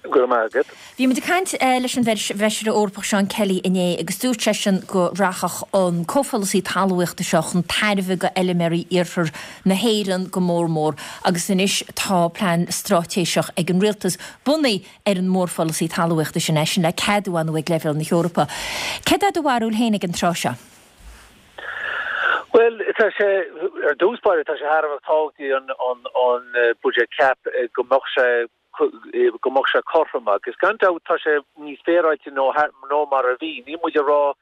Go raibh maith agat. Bhí muid ag caint leis an bhFeisire Eorpach Seán Kelly inné agus dúirt seisean go rachadh an comhpholasaí talmhaíochta seo chun tairbhe go fheiliméaraí iarthar na hÉireann go mór mór agus anois tá plean straitéiseach ag an rialtas bunaithe ar an mórpholasaí talmhaíochta sin, é sin le ceadú ar ndóigh ag leibhéal na hEorpa. Céard é do bharúil féin ag an tráth seo? Bhuel, tá sé, ar dtús báire, tá sé thar a bheith tábhachtach an, an, an buiséad CAP go mbeadh sé, go mbeadh sé cothrom agus gan dabht tá sé níos féaráilte nó, nó mar a bhí. Níl muid ag rá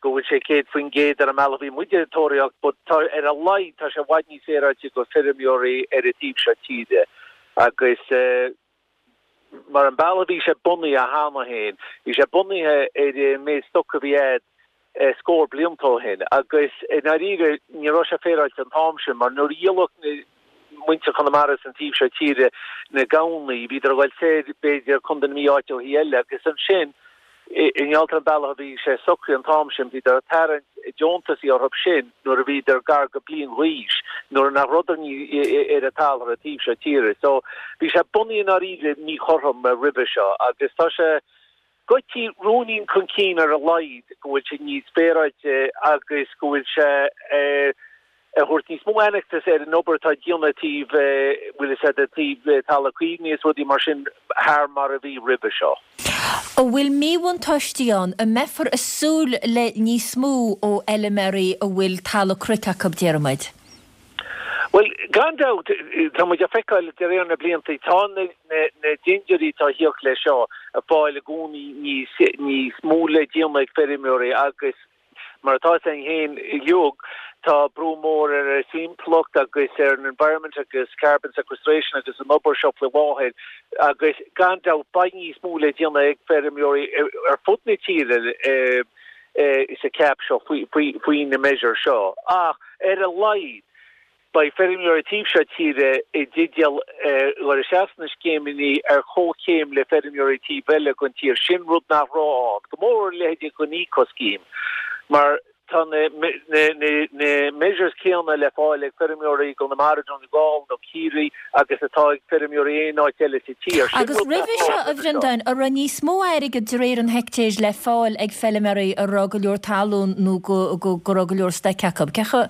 go bhfuil sé 100% ar an mbealach a bhí muid ag tóraíocht but tá, ar a laghad, tá sé i bhfad níos féaráilte go feirmeoirí ar an taobh seo tíre agus, Mar an bealach a bhí sé bunaithe cheana féin, bhí sé bunaithe ar an méid stoc a bhí a'd scór blianta ó shin agus i ndáiríre ní raibh sé féaráilte an t-am sin mar nuair a dhíoladh na muintir Chonamara san taobh seo tíre na gamhnaí, bhíodar ag dul soir b'fhéidir Contae na Mí áiteachaí eile agus ansin I ngeall ar an bealach a bhí sé socraithe an t-am sin, bhíodar ag tarraingt deontasaí orthu sin nuair a bhíodar gar go bliain dh'aois, nuair nach rabhadar ar an talamh ar an taobh seo tíre. So, bhí sé bunaithe i ndáiríre míchothrom roimhe seo agus tá sé goití ruainnín chun cinn ar a laghad go bhfuil sé níos féaráilte agus go bhfuil sé ag thabhairt níos mó aitheantais ar an obair atá déanta taobh, bhfuil fhios a'd, taobh talamh caomhnaithe is rudaí mar sin thar mar a bhí roimhe seo. An bhfuil míbhuntáistí ann? An mbeifear ag súil le níos mó ó fheiliméaraí a bhfuil talamh cnoic acu, déarfaidh muid? Bhuel, gan dabht, tá muid ag feiceáil de réir na blianta, tá na dindiúirí atá ag tíocht leis seo ag fáil i gcónaí níos, níos mó le déanamh ag feirmeoirí agus Mar atá fhios a'inn féin uilig, tá brú mór ar an timpeallacht agus ar an environment agus carbon sequestration agus an obair seo faoi láthair agus gan dabht beidh níos mó le déanamh ag feirmeoirí ar fud na tíre sa CAP seo faoi na measures seo. Ach ar a laghad, Beidh feirmeoirí taobh seo tíre i dteideal dhul isteach sna scéimeanna ar chomhchéim le feirmeoirí taobh eile den tír. Sin rud nach raibh ann, go mór a leithéidí den Eco Scheme, mar tá na measures céanna le fáil ag feirmeoirí i gConamara, Donegal nó Ciarraí agus atá ag feirmeoirí aon áit eile sa tír. Sin Agus rud nach roimhe raibh seo, ann a roimhe seo. Bhreandáin, an raibh níos mó airgid de réir an heictéir le fáil ag feilméaraí a raibh go leor talún nó go raibh go leor stoic acu? Cé chomh.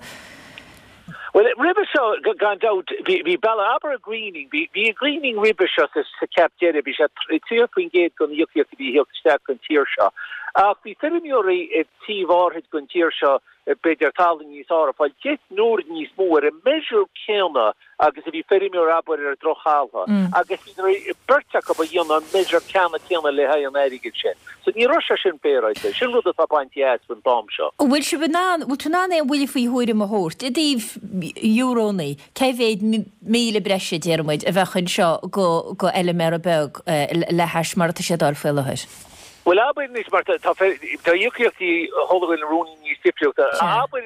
Bhuel, roimhe seo, gan dabht, bhí bealach, abair an greening, bhí an greening roimhe seo sa CAP deiridh, bhí sé 30% den íocaíocht a bhí ag theacht isteach don tír seo. Ach bhí feirmeoirí i taobh áirid den tír seo, b'fhéidir talamh níos fearr, ag fáil 10 n-uair níos mó ar an measure céanna agus a bhí feirmeoir abair ar drochthalamh agus bhí beirt acu a dhéanamh an measure ceanna céanna le haghaidh an airgid sin. So ní raibh sé sin féaráilte. Sin rud atá bainte as faoin t-am seo. An bhfuil sibh in ann, bhfuil tú in ann aon bhuille faoi thuairim a thabhairt i dtaobh eurónnaí, cé mhéad míle breise, déarfaidh muid, a bheadh anseo go go fheilméara beag le hais mar atá sé ag dul faoi láthair? Bhuel, abair anois, mar tá íocaíochtaí chuile dhuine ruainnín níos difriúchta. Abair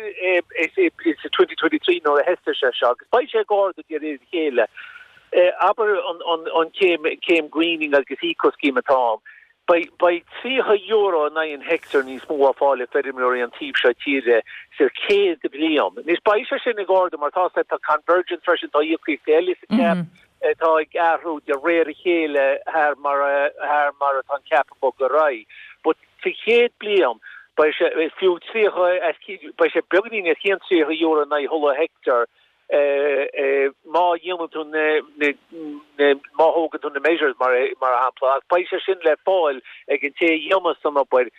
sa 2023 nuair a thosaigh sé seo, agus beidh sé ag ardú de réir a chéile, abair an céim greening agus eco scheme atá ann, beidh €30 in aghaidh an heicteáir níos mó á fáil ag feirmeoirí an taobh seo tíre sa chéad bhliain. Anois beidh sé sin ag ardú mar tá tá convergence freisin, tá íocaíochtaí eile sa CAP, atá ag athrú de réir a chéile thar mar thar mar atá an cap ag bogadh ar aghaidh. But sa chéad bliain beidh sé fiú 30 as beidh sé beagáinín os cionn €30 in aghaidh chuile heicteár má dhéanann tú na na má thógann tú na measures mar mar shampla ach beidh sé sin le fáil ag an té a dhéanas an obair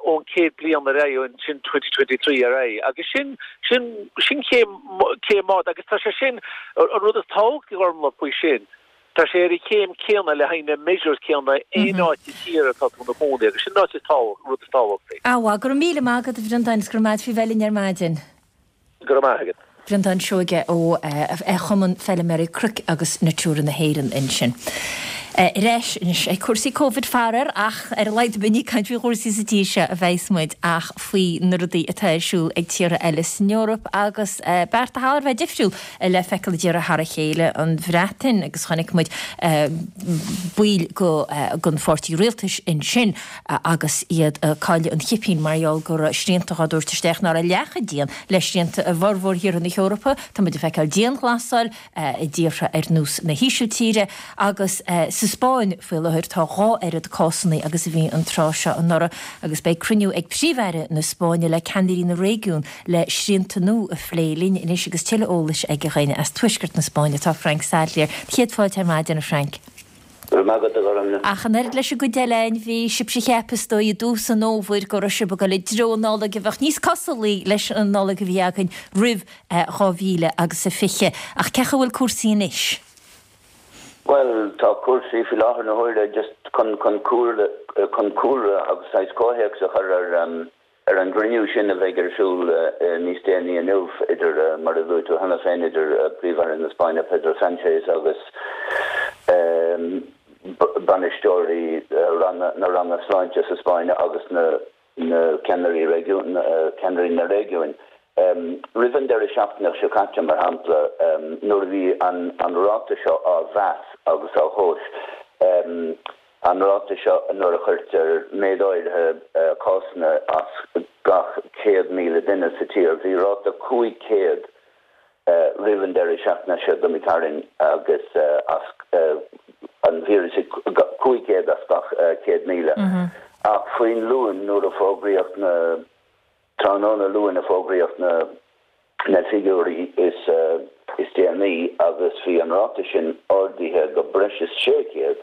ón chéad bliain ar aghaidh, sin 2023 ar aghaidh. Agus sin, sin, sin céim, céim mhaith agus tá sé sin, an rud is tábhachtaí Gormlaith faoi sin, tá sé ar an chéim céanna le haghaidh na measures céanna aon áit sa tír atá tú ina chónaí agus sin an áit is tábhacht, rud is tábhachtaí. Á, bhuel, go raibh míle maith agat a Bhreandáin is go raibh maith agat faoi bheith linn ar maidin. Go raibh maith agat. Breandán Seoige ó Chumann Feilméaraí Cnoic agus Natura na hÉireann ansin. Ar ais anois ag cúrsaí Covid faraor ach ar a laghad ní ag caint faoi chúrsaí sa tír seo a bheas muid ach faoi na rudaí atá ar siúl ag tíortha eile san Eoraip agus bearta thar a bheith difriúil le feiceáil i dtíortha thar a chéile, an Bhreatain agus chonaic muid baill den pháirtí rialtais ansin agus iad ag cailleadh an chipín mar gheall go raibh srianta á dtabhairt isteach nach raibh leath chomh dian le srianta i bhformhór thíortha na hEorpa. Tá muid ag feiceáil dianghlasáil i dtíortha ar nós na hÍsiltíre agus sa Spáinn faoi láthair tá dhá oiread cásanna agus a bhí an tráth seo anuraidh agus beidh cruinniú ag Príomh-Aire na Spáinne le ceannairí na réigiún le srianta nua a phlé. Linn anois agus tuilleadh eolais aige againn as tuaisceart na Spáinne tá Frank Sadlier. Céad fáilte ar maidin a Frank. Go raibh maith agat, a Ghormlaith. Ach an oiread leis an gcuid eile againn, bhí sibhse a cheap, is dóigh, i dtús an fhómhair go raibh sibh ag dul i dtreo Nollaig a bheadh níos cosúlaí leis an Nollaig a bhí againn roimh 2000 agus a 20. Ach cén chaoi a bhfuil cúrsaí anois? Bhuel, tá cúrsaí faoi láthair na huaire just chun chun cúlra chun cúlra agus saghas comhthéacs a chur ar Ar an gcruinniú sin a bheidh ar siúl níos déanaí inniu idir, mar a luaigh tú cheana féin, idir Príomh-Aire na Spáinne Pedro Sánchez agus bainisteoirí na ranna sláinte sa Spáinn agus na ceannairí réigiún, ceannairí na réigiúin. Roimh an deireadh seachtaine seo caite, mar shampla, nuair a bhí an ráta seo á mheas agus á thomhas, An ráta seo nuair a chuirtear méid áirithe cásanna as gach 100,000 duine sa tír. Bhí ráta 500 roimh an deireadh seachtaine seo d'imigh tharainn agus as an víreas 500 as gach 100,000. Ach faoin Luan nuair a fógraíodh na Tráthnóna Luain a fógraíodh na figiúirí is déanaí agus bhí an ráta sin ardaithe go breis is 600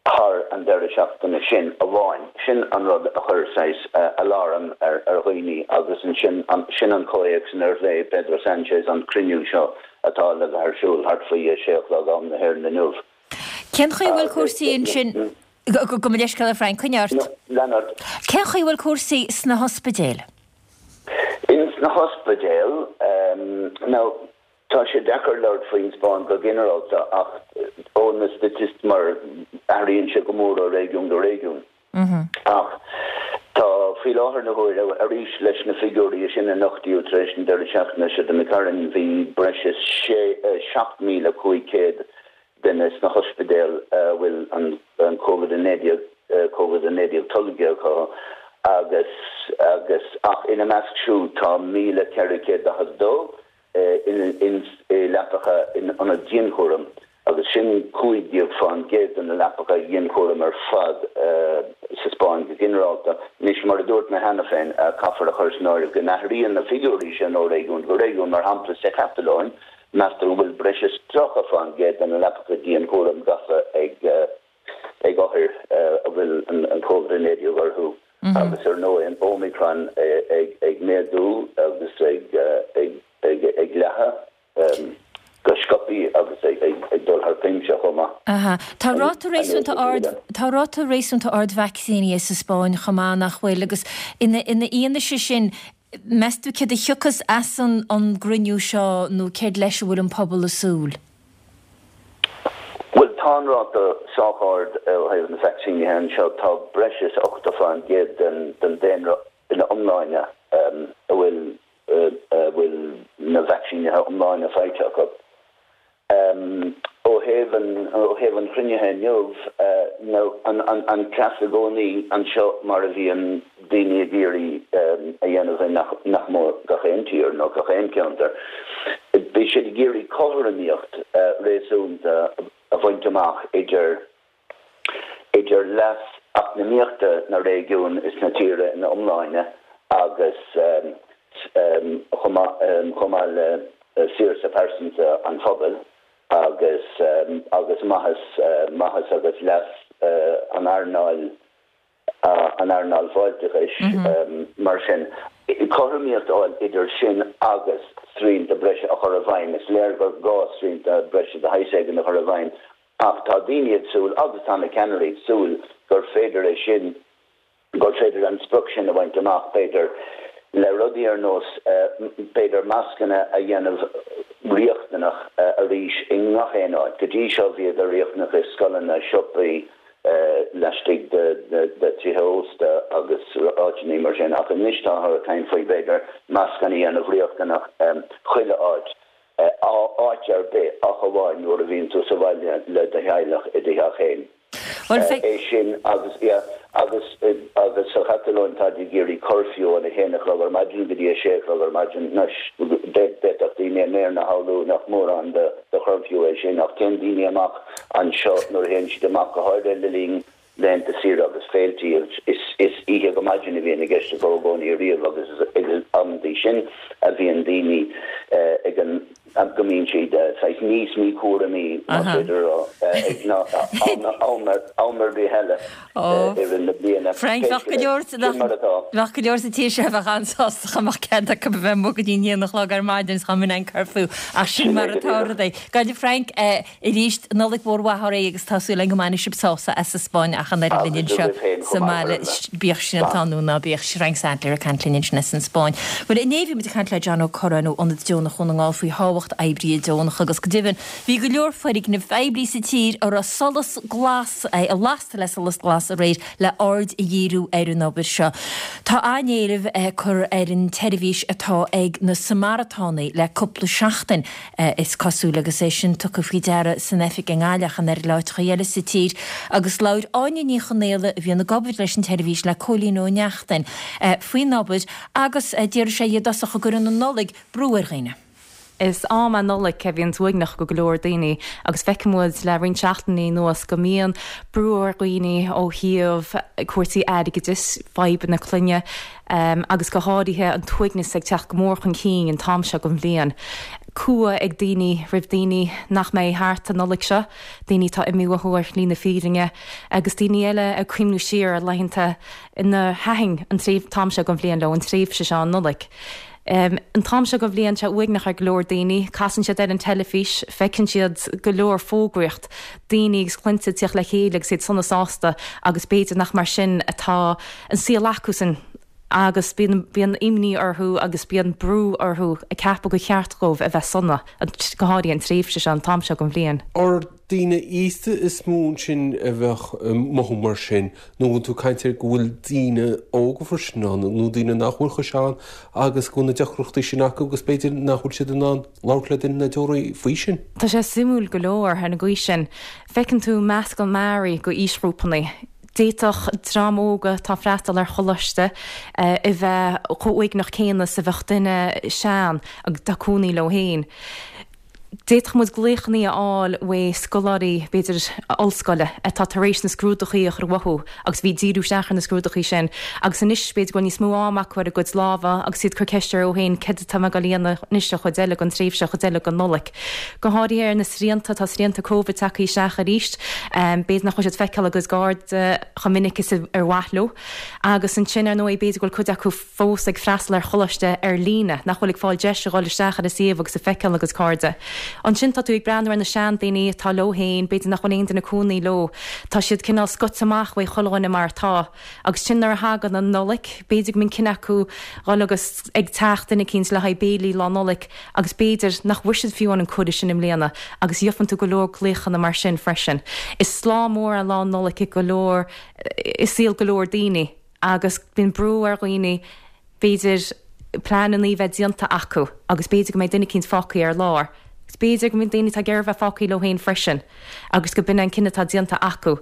thar an deireadh seachtaine sin amháin. Sin an rud a chuir saghas aláram ar dhaoine agus ansin sin an comhthéacs inar phléigh Pedro Sánchez an cruinniú seo atá le bheith ar siúl thart faoi a sé a chlog am na hÉireann inniu. Cén chaoi a bhfuil cúrsaí ansin? Gabh mo leithscéal a Frank, coinnigh ort. Lean ort. Cén chaoi a bhfuil cúrsaí sna hospidéil? Ins na hospidéil, now tá sé deacair labhairt faoin Spáinn go ginearálta ach ó na staitisticí mar athraíonn sé go mór ó réigiún go réigiún. Ach tá faoi láthair na huaire, arís leis na figiúirí is sine a nochtaíodh tar éis an deireadh seachtaine seo d'imigh tharainn, bhí breis is 7,500 duine sna hospidéil a bhfuil an Covid-19 Covid-19 tolgtha acu agus agus ach ina measc siúd tá 1,442 i leapacha in ionad dianchúraim agus sin 15% de na leapacha dianchúraim ar fad sa Spáinn go ginearálta. Anois, mar a dúirt mé cheana féin, caithfear a chur san áireamh go n-athraíonn na figiúirí sin ó réigiún go réigiún, mar shampla sa Chatalóin, meastar go bhfuil breis is 30% de na leapacha dianchúraim gafa ag. ag othair a bhfuil an Covid-19 orthu agus ar ndóigh an Omicron ag méadú agus ag leathadh go sciobthaí agus ag dul thar cuimse chomh maith. Aha. Tá ráta réasúnta ard, tá ráta réasúnta ard vacsaínithe sa Spáinn chomh maith, nach bhfuil? Agus ina fhianaise sin, meas tú céard a thiocfas as an gcruinniú seo nó céard leis a bhfuil an pobal ag súil? Bhuel, tá an ráta sách ard ó thaobh na vacsaínithe anseo. Tá breis is 80% den daonra ina iomláine a bhfuil a bhfuil na vacsaínithe iomláine faighte acu. Ó thaobh an, ó thaobh an chruinnithe inniu, nó an, an, an cleas i gcónaí anseo mar a bhíonn daoine ag iarraidh a dhéanamh i nach, nach mór gach aon tír nó gach aon cheantar, bhí siad ag iarraidh cothromaíocht réasúnta a bhaint amach idir, idir leas eacnamaíochta na réigiún is na tíre ina iomláine agus chomh maith le saoirse pearsanta an phobail agus agus maitheas maitheas agus leas an earnáil an earnáil fáilteachais. Mar sin, cothromaíocht a fháil idir sin agus srianta breise a chur i bhfeidhm. Is léir gur gá srianta breise de shaghas éigin a chur i bhfeidhm Ach tá daoine ag súil, agus tá na ceannairí ag súil, gur féidir é sin, gur féidir an sprioc sin a bhaint amach, b'fhéidir, le rudaí ar nós, b'fhéidir, mascanna a dhéanamh riachtanach arís i ngach aon áit. Go dtí seo bhíodar riachtanach i scoileanna, siopaí, laistigh de tithe ósta agus áiteanna mar sin, ach anois táthar ag caint faoi, b'fhéidir, mascanna a dhéanamh riachtanach chuile áit. áit ar bith ach amháin nuair a bhíonn tú sa bhaile le do theaghlach i do theach féin. É sin agus, yeah, agus, agus sa Chatalóin táid ag iarraidh curfew ón 1 a chlog ar maidin go dtí 6 a chlog ar maidin. Anois, d'fhéadfadh daoine i mBéarna a shamhlú nach mórán de churfew é sin ach téann daoine amach anseo nuair a théann siad amach, go háirithe le linn laethanta saoire agus féiltí. Is oíche go maidin a bhíonn i gceist i gcónaí ariamh agus is ag an amantaí sin a bhíonn daoine ag an go mbíonn siad saghas níos míchúramaí, más féidir a rá, ag ná am am ar bith eile i rith na bliana. Frank, bheadh go leor Sin mar atá. Bheadh go leor sa tír seo a bheadh an-sásta dá mbeadh cead acu a bheith amuigh go dtí an haon a chlog ar maidin is dá mbeadh an curfew ach sin mar atá rudaí. Go Frank, Arís, Nollaig mhór mhaith oraibh agus tá súil againn go mbainfidh sibh sásamh as an Spáinn ach an oiread linn anseo sa mbaile, bíodh srianta ann nó ná bíodh. Frank Sadlier ag caint linn ansin as an Spáinn. Bhuel, inné bhí muid ag caint le John Ó Curráin ó Ionad Deonach Dhún na nGall faoi thábhacht oibrithe deonacha agus go deimhin bhí go leor foirgnimh phoiblí sa tír a raibh solas glas, lasta le solas glas aréir le aird a dhíriú ar an obair seo. Tá an-éileamh curtha ar an tseirbhís atá ag na Samaratánaigh le cúpla seachtain. Is cosúil, agus é sin tugtha faoi deara san oifig i nGaillimh ach an oiread le áiteacha eile sa tír, agus labhair Áine Ní Chonaola, a bhíonn ag obair leis an tseirbhís, le Cóilín Ó Neachtain faoin obair agus déarfaidh sé i dtosach go gcuireann an Nollaig brú ar dhaoine. Is am é Nollaig a bhíonns uaigneach go go leor daoine agus feiceann muid le roinnt seachtainí anuas go mbíonn brú ar dhaoine ó thaobh cúrsaí airgeadais, fadhbanna clainne, agus go háirithe an t-uaigneas ag teacht go mór chun cinn an t-am seo den bhliain. Cumha ag daoine roimh daoine nach mbeidh thart an Nollaig seo, daoine atá imithe uathu ar shlí na fírinne, agus daoine eile ag cuimhniú siar ar laethanta inar thaitin an t-am seo den bhliain leo, an tréimhse seo, an Nollaig. An t-am seo den bhliain, tá sé uaigneach ar go leor daoine. Casann siad ar an teilifís, feiceann siad go leor fógraíocht, daoine agus clainne ag tíocht le chéile agus iad sona sásta agus b'fhéidir nach mar sin atá an saol acusan agus bíonn, bíonn imní orthu agus bíonn brú orthu ag ceapadh gur cheart dóibh a bheith sona, go háirithe an tréimhse seo, an t-am seo den bhliain. Ar daoine aosta is mó ansin a bheadh ag mothú mar sin nó an bhfuil tú ag caint ar go bhfuil daoine óga freisin ann nó daoine nach bhfuil chomh sean agus go bhfuil na deacrachtaí sin acu agus b'fhéidir nach bhfuil siad in ann labhairt le duine nádúrtha faoi sin? Tá sé suimiúil go leor ar an gcaoi sin. Feiceann tú meascán mearaí de aoisghrúpanna. D'fhéadfadh dream óg atá ag freastal ar choláiste a bheith chomh uaigneach céanna is a bheadh duine sean atá ag cónaí leo féin. D'fhéadfadh muid glaochannaí a fháil uaidh scoláirí, b'fhéidir, ollscoile, atá tar éis na scrúdachaí a chur uathu agus bhí ag díriú isteach ar na scrúdachaí sin agus anois b'fhéidir go bhfuil níos mó am acu ar a gcuid lámha agus iad ag cur ceist orthu féin céard atá mé ag dul a dhéanamh anois an chuid eile den tréimhse, an chuid eile den Nollaig. Go háirithe ar na srianta, tá srianta Covid tagtha isteach arís, b'fhéidir nach bhfuil siad ag feiceáil a gcuid cairde chomh minic is ar mhaith leo agus ansin ar ndóigh b'fhéidir go bhfuil cuid acu fós ag freastal ar choláiste ar líne, nach bhfuil ag fáil deis a dhul isteach ar an suíomh agus ag feiceáil a gcuid cairde. Ansin tá tú ag breathnú ar na seandaoine atá leo féin, b'fhéidir nach bhfuil aon duine cónaí leo, tá siad cineál scoite amach uaidh chuile dhuine mar atá. Agus sin nuair a thagann an Nollaig, b'fhéidir go mbíonn cinneadh acu dhul agus ag teach duine eicínt le haghaidh béilí Lá Nollag agus b'fhéidir nach bhfuair siad fiú an cuireadh sin i mbliana agus gheofann tú go leor glaochanna mar sin freisin. Is lá mór é Lá Nollag i go leor, i saol go leor daoine. agus bíonn brú ar dhaoine b'fhéidir pleananna a bheith déanta acu agus b'fhéidir go mbeidh duine eicínt fágtha ar lár agus b'fhéidir go mbíonn daoine atá ag iarraidh bheith fágtha leo féin freisin agus go b'in an cinneadh atá déanta acu.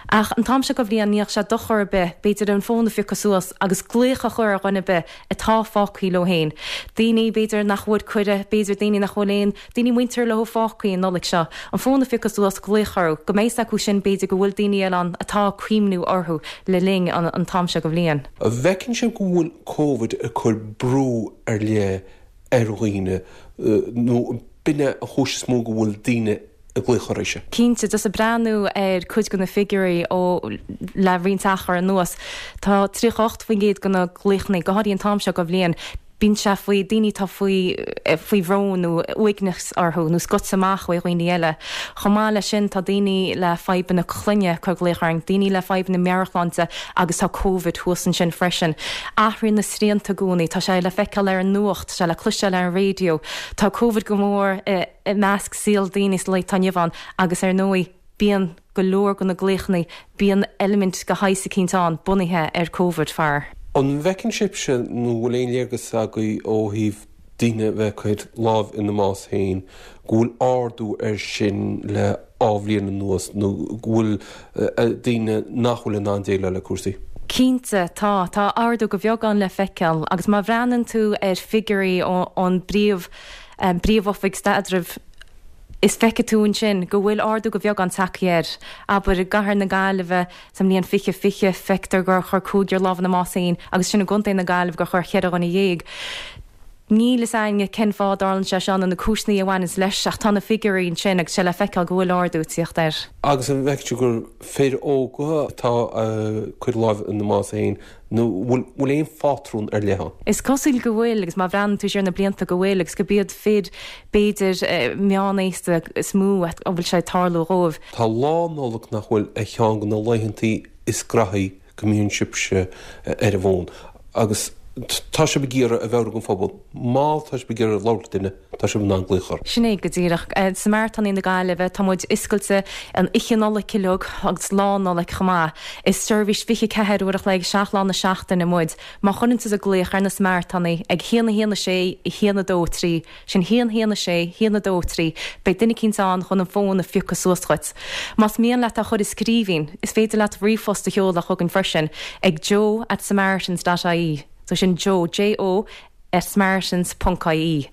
Ach an t-am seo de bhliain ní bheadh sé dochar ar bith b'fhéidir an fón a phiocadh suas agus glaoch a chur ar dhuine ar bith atá fágtha leo féin. Daoine b'fhéidir nach bhfuair cuireadh, b'fhéidir daoine nach bhfuil aon daoine muinteartha leo fágtha an Nollaig seo, an fón a phiocadh suas, glaoch orthu, go mbeidh 's acu sin b'fhéidir go bhfuil daoine eile ann atá ag cuimhniú orthu le linn an t-am seo de bhliain. An bhfeiceann sibh go bhfuil Covid ag cur brú ar leith ar dhaoine nó b'in é an chúis is mó go bhfuil daoine ag glaoch oraibhse? Cinnte, just ag breathnú ar cuid de na figiúirí ó le roinnt achar anuas, tá 38% de na glaochanna, go háirithe an t-am seo de bhliain, Bíonn sé faoi daoine atá faoi faoi bhrón nó uaigneas orthu nó scoite amach ó dhaoine eile. Chomh maith leis sin tá daoine le fadhbanna clainne ag cur glaoch orainn, daoine le fadhbanna meabhairshláinte agus tá Covid thuas ansin freisin. Athraíonn na srianta i gcónaí, tá sé le feiceáil ar an nuacht, tá sé le cloisteáil ar an raidió. Tá Covid go mór i measc saol daoine sa lá atá inniu ann agus ar ndóigh, Bíonn go leor de na glaochanna, bíonn eilimint de shaghas eicínt ann bunaithe ar Covid, faraor. An bhfeiceann sibhse nó bhfuil aon léargas agaibh ó thaobh daoine a bheith ag cur lámh ina mbás féin, go bhfuil ardú air sin le dhá bhliain anuas nó go bhfuil daoine nach bhfuil in ann déileáil le cúrsaí? Cinnte, tá. Tá ardú de bheagán le feiceáil agus má bhreathnaíonn tú ar figiúirí ón bpríomh, bPríomh-Oifig Staidrimh, is feicfidh tú ansin go bhfuil ardú de bheagán tagtha air. Abair, i gcathair na Gaillimhe sa mbliain 2020, feictear gur chuir cúigear lámh ina mbás féin agus sin i gContae na Gaillimhe gur chuir cheithre dhuine dhéag. Níl fhios a'inne cén fáth a dtarlaíonn sé seo nó na cúiseanna a bhaineanns leis ach tá na figiúirí ansin agus sé le feiceáil go bhfuil ardú ag tíocht air. Agus an bhfeiceann tú gur fir óga atá ag cur lámh ina mbás féin Nó bhfuil aon phátrún ar leith ann? Is cosúil go bhfuil, agus má bhreathnaíonn tú siar na blianta go bhfuil, agus gurb iad fir, b'fhéidir, meánaosta is mó a bhfuil sé ag tarlú dhóibh. Tá Lá Nollag nach bhfuil ar cheann de na laethantaí is graithí go mbíonn sibhse ar an bhfón agus tá sibh ag iarraidh a mheabhrú don phobal má tá sibh ag iarraidh labhairt le duine, tá sibh in ann glaoch orthu. Sin é go díreach. Samaritánaigh na Gaillimhe, tá muid oscailte an oíche Nollag uilig agus Lá Nollag chomh maith. Is seirbhís 24 uair a chloig, 7 lá na seachtaine muid. Má chuireann tusa glaoch ar na Samaritánaigh ag 1 1 6 1 2 3, sin 1 1 6 1 2 3, beidh duine eicínt ann chun an fón a phiocadh suas dhuit. Más mian leat é a chur i scríbhinn, is féidir leat ríomhphost a sheoladh chugainn freisin ag joe at samaritans dot ie. So sin Joe, J-O, at samaritans ponc ie.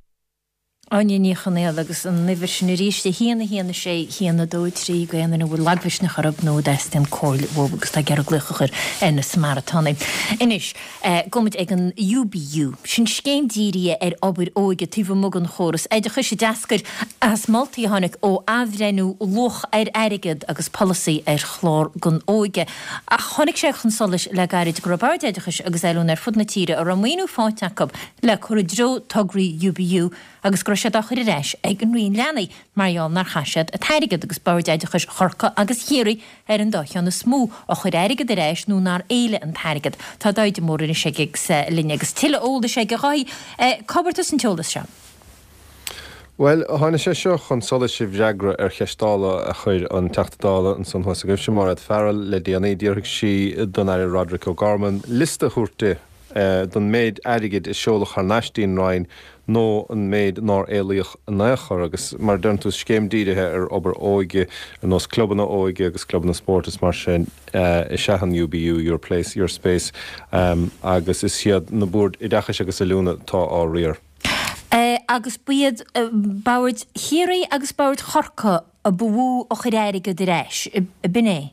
Áine Ní Chonaola agus an uimhir sin arís, 1 1 6 1 2 3 do aon duine a bhfuil lagmhisneach orthu nó a dteastaíonn comhairle uathu agus atá ag iarraidh glaoch a chur ar na Samaritánaigh. Anois, gabhfaidh muid ag an UBU. Sin scéim dírithe ar obair óige taobh amuigh den chóras oideachais a d'eascair as moltaí a tháinig ó athbhreithniú luach ar airgead agus polasaí ar chlár don óige. Ach tháinig sé chun solais le gairid go raibh Boird Oideachais agus Oiliúna ar fud na tíre a raibh maoiniú faighte acu le cur i dtreo tograí UBU agus go raibh siad á chur ar ais ag an Roinn Leanaí mar gheall nár chaith siad an t-airgead agus Boird Oideachais Chorcaí agus Chiarraí ar an dá cheann is mó a chuir airgead ar ais nó nár éiligh an t-airgead. Tá Dáithí de Mórdha anois ag linn agus tuilleadh eolais aige. A Dháithí, cá bhfuair tusa an t-eolas seo? Bhuel, tháinig sé seo chun solais i bhfreagra ar cheist Dála a chuir an Teachta Dála ansan thuas agaibhse, Mairéad Farrell, le déanaí. D'fhiafraigh sí don Aire Roderic O'Gorman liosta a thabhairt di don méid airgid a seoladh thar n-ais dtí'n Roinn nó an méid nár éilíodh in aon chor. Agus mar a deireann tú, is scéim dírithe ar obair óige, ar nós clubanna óige agus clubanna spóirt is mar sin, is ea an UBU, Your Place, Your Space, agus is iad na Boird Oideachais agus Oiliúna atá á riar. Agus ba iad boird Chiarraí agus boird Chorcaí a ba mhó a chuir airgead ar ais, b'in é?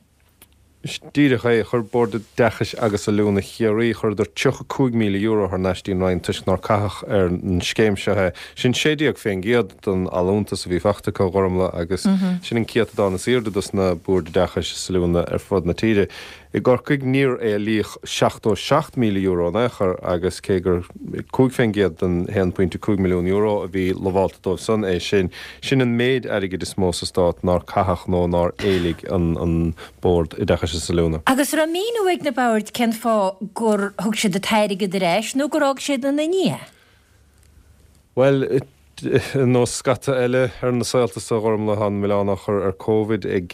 Díreach é. Chuir Bord Oideachais agus Oiliúna Chiarraí, chuireadar €35,000 thar n-ais dtí'n Roinn toisc nár caitheadh ar an scéim seo é. Sin 16% den allúntas a bhí fachta acu, a Ghormlaith, agus sin an céatadán is aoirde dos na Boird Oideachais is Oiliúna ar fud na tíre. I gCorcaigh níor éilíodh €77,000 in aon chor agus cé gur 5% den €1.5 milliún a bhí lamhálta dóibh san é sin, sin an méid airgid is mó sa stát nár caitheadh nó nár éiligh an Bord Oideachais is Oiliúna. Agus an raibh míniú ag na boird cén fáth gur thug siad an t-airgead ar ais nó gur fhág siad ina ndiaidh é? Bhuel, ar nós scata eile ar na saolta so, a Ghormlaith, tá an milleán á chur ar Covid ag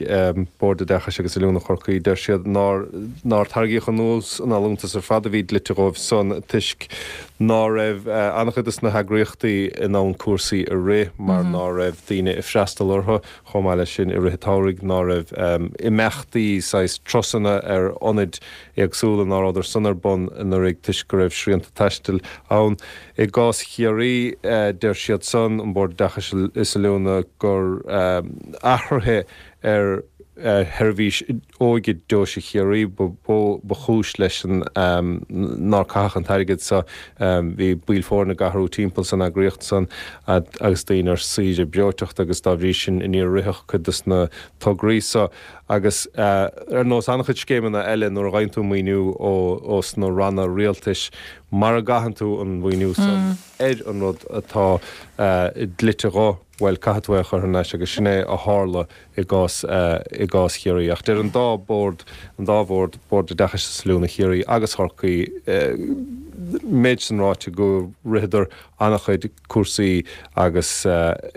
Bord Oideachais agus Oiliúna Chorcaí. Deir siad nár nár tarraingíodh anuas an allúntas ar fad a bhí dlite dhóibh san toisc ná raibh an-chuid dos na heagraíochtaí in ann cúrsaí a rith mar ná raibh daoine ag freastal orthu. Chomh maith leis sin, i rith an tsamhraidh ná raibh imeachtaí saghas turasanna ar ionaid éagsúla ná rabhadar san ar bun anuraidh toisc go raibh srianta taistil ann. I gcás Chiarraí, deir siad san, an Bord Oideachais is Oiliúna, gur athruithe ar sheirbhís óige Deoise Chiarraí ba mhó ba chúis leis an nár caitheadh an t-airgead so. Bhí baill foirne ag athrú timpeall san eagraíocht san agus daoine ar saoire breoiteachta agus dá bhrí sin níor ritheadh cuid dos na tograí so. Agus ar nós an-chuid scéimeanna eile nuair a fhaigheann tú maoiniú ó sna ranna rialtais, Mara gcaitheann tú an mhaoiniú san ar an rud atá dlite dho, bhuel, caithfidh tú é a chur thar n-ais agus sin é a tharla i gcás, i gcás Chiarraí. Ach deir an dá bhord, an dá bhord, Bord Oideachais is Oiliúna Chiarraí agus Chorcaí, méid san ráite go ritheadar an-chuid cúrsaí agus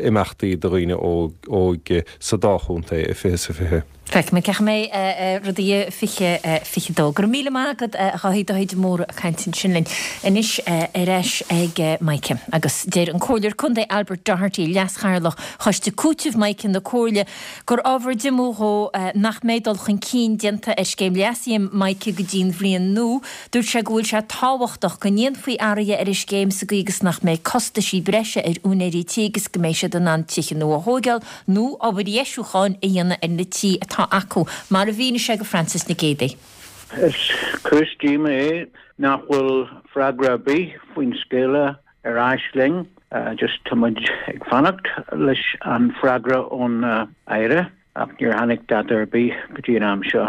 imeachtaí do dhaoine óga sa dá chontae i 20 is 20. Feicfimid cén chaoi a mbeidh rudaí i 2022. Go raibh míle maith agat a Dháithí, Dáithí de Mórdha ag caint ansin linn. Anois ar ais ag Mica. Agus deir an Comhairleoir Contae Albert Doherty, Leas-Chathaoirleach Choiste Cúitimh Mica na Comhairle, gur ábhar diomú dhó nach mbeidh dul chun cinn déanta ar scéim leasaithe Mica go dtí'n bhliain nua. Dúirt sé go bhfuil sé tábhachtach go ndéanfaí athruithe ar an scéim sa gcaoi agus nach mbeidh costaisí breise ar úinéirí tí agus go mbeidh siad in ann tithe nua a thóigeáil nó obair dheisiúcháin a dhéanamh ar na tí atá acu, mar a mhínigh sé go Frances Nic Géadaigh. Is cúis díoma é nach bhfuil freagra ar bith faoin scéala ar ais linn. Just tá muid ag fanacht leis an freagra ón Aire ach níor tháinig dada ar bith go dtí an am seo.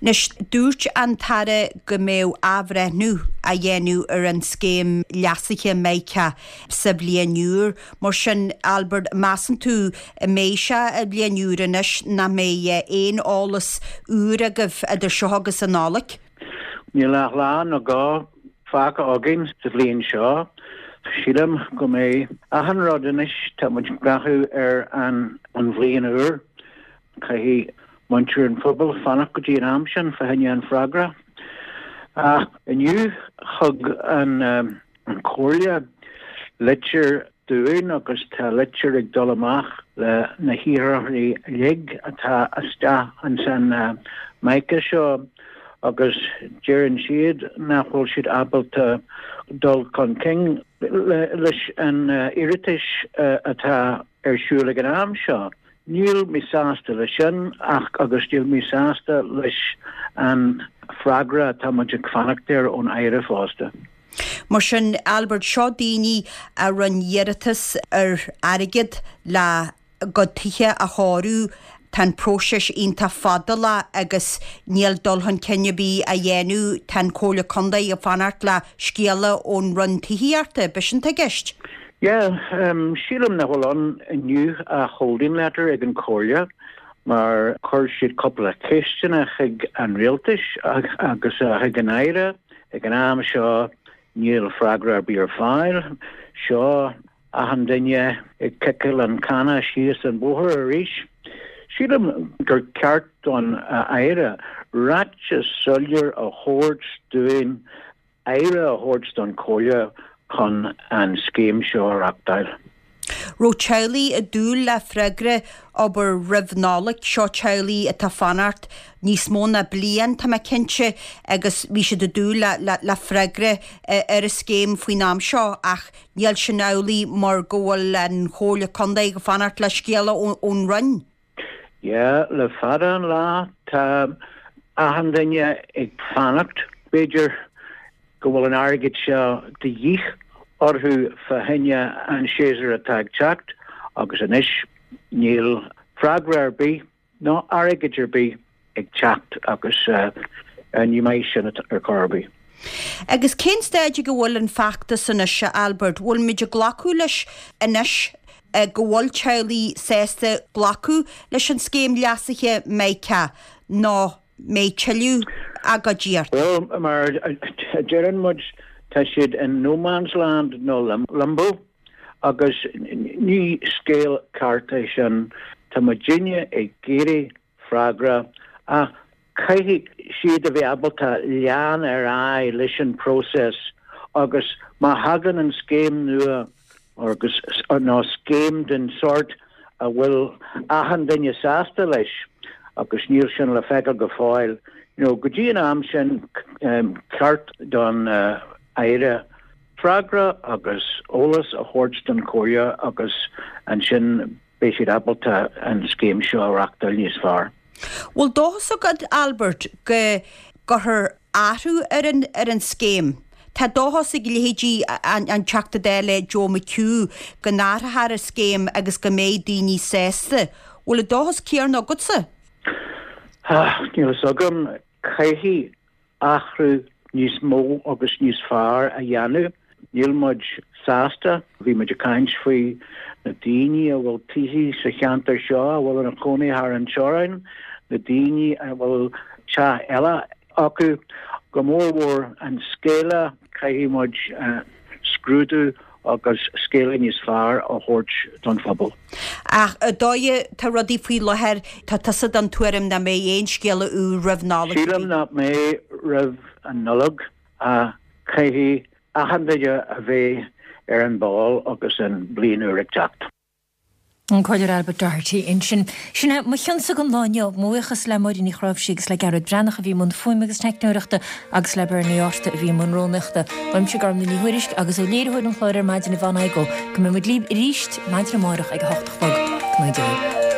Anois, dúirt an tAire go mbeadh athbhreithniú á dhéanamh ar an scéim leasaithe Mica sa bhliain úr. Mar sin, Albert, measann tú an mbeidh sé an bhliain úr anois nach mbeidh aon eolas úr agaibh idir seo agus an Nollaig? Níl ach lá nó dhó fágtha againn sa bhliain seo. Sílim go mbeidh achan rud anois, tá muid ag breathnú ar an bhliain úr. Caithfidh muintir an phobail fanacht go dtí an am sin fá choinne an freagra. Ach inniu thug an Chomhairle litir dúinn agus tá litir ag dul amach le na hiarrthóirí uilig atá isteach ins an MICA seo agus deireann siad nach bhfuil siad ábalta dul chun cinn leis an iarratais atá ar siúl ag an am seo. Níl mé sásta leis sin ach agus níl mé sásta leis an freagra atá muid ag fanacht air ón Aire fosta. Mar sin, Albert, seo daoine a rinne iarratas ar airgead le a gcuid tithe a chóiriú. Tá an próiseas iontach fadálach agus níl dul chun cinn ar bith á dhéanamh. Tá an Chomhairle Contae ag fanacht le scéala ón Roinn Tithíochta. B'shin atá i gceist? Yeah, sílim nach bhfuil ann inniu ach holding letter ag an Chomhairle mar chuir siad cúpla ceisteanna chuig an Rialtais agus chuig an Aire. Ag an am seo níl freagra ar bith ar fáil. Seo achan duine ag ciceáil an canna síos an bóthar arís. Sílim gur ceart don Aire ráiteas soiléir a thabhairt dúinn aire a thabhairt don Chomhairle chun an scéim seo a reachtáil. Raibh teaghlaigh ag dúil le freagra, abair, roimh Nollaig, seo teaghlaigh atá ag fanacht níos mó ná bliain, tá mé cinnte, agus bhí siad ag dúil le freagra ar an scéim faoin am seo ach níl sin amhlaidh mar go bhfuil an Chomhairle Contae ag fanacht le scéala ón Roinn. Yeah, le fada an lá tá achan duine ag fanacht. B'fhéidir go bhfuil an airgead seo de dhíth orthu fá choinne an séasúr atá ag teacht agus anois níl freagra ar bith ná airgead ar bith ag teacht agus ní maith sin ar chor ar bith. Agus cén staid ag a bhfuil an feachtas anois, a Albert? Bhfuil muid ag glacadh leis anois go bhfuil teaghlaigh sásta glacadh leis an scéim leasaithe MiCA nó mbeidh tuilleadh agóidí ort? Bhuel, mar a deireann muid, tá siad in no man's land nó limbo agus ní scéal ceart é sin. Tá muidinne ag iarraidh freagra ach caithfidh siad a bheith ábalta lean ar aghaidh leis an próiseas agus má thagann an scéim nua agus nó scéim den sórt a bhfuil achan duine sásta leis agus níl sin le feiceáil go fóill, you know, go dtí an am sin ceart don Aire freagra agus eolas a thabhairt don Chomhairle agus ansin beidh siad ábalta an scéim seo a reachtáil níos fearr. Bhfuil dóchas agat, Albert, go gcuirfear athrú ar an ar an scéim? Tá dóchas ag leithéidí an Teachta Dála Joe McHugh go n-athrófar an scéim agus go mbeidh daoine sásta. Bhfuil an dóchas céanna agatsa? Níl fhios agam. Caithfidh athrú níos mó agus níos fearr a dhéanamh. Níl muid sásta. Bhí muid ag caint faoi na daoine a bhfuil tithe sa cheantar seo a bhfuil ina chónaí thar an teorainn, na daoine a bhfuil teach eile acu, go mór mhór an scéala, caithfidh muid scrúdú agus scéala níos fearr a thabhairt don phobal. Ach an dóigh atá rudaí faoi láthair, tá tusa den tuairim nach mbeidh aon scéala úr roimh Nollaig ar bith? Sílim nach mbeidh roimh an Nollaig ach caithfidh achan duine a bheith ar an ball agus an bliain úr ag teacht. An Comhairleoir Albert Doherty ansin. Sin é mo chionsa don lá inniu. Mo bhuíochas le Máirín Ní Chráimhsí agus le Gearóid Breathnach a bhí i mbun fuaime agus teicneoireachta agus le Bernie Arthur a bhí i mbun rúnaíochta. Uaimse Gormlaith Ní Thuairisg agus ó léiritheoir an chláir ar maidin Yvonne Igoe go mbeidh muid libh arís maidin amárach ag a hocht a chlog. Go mbeidh Dia libh.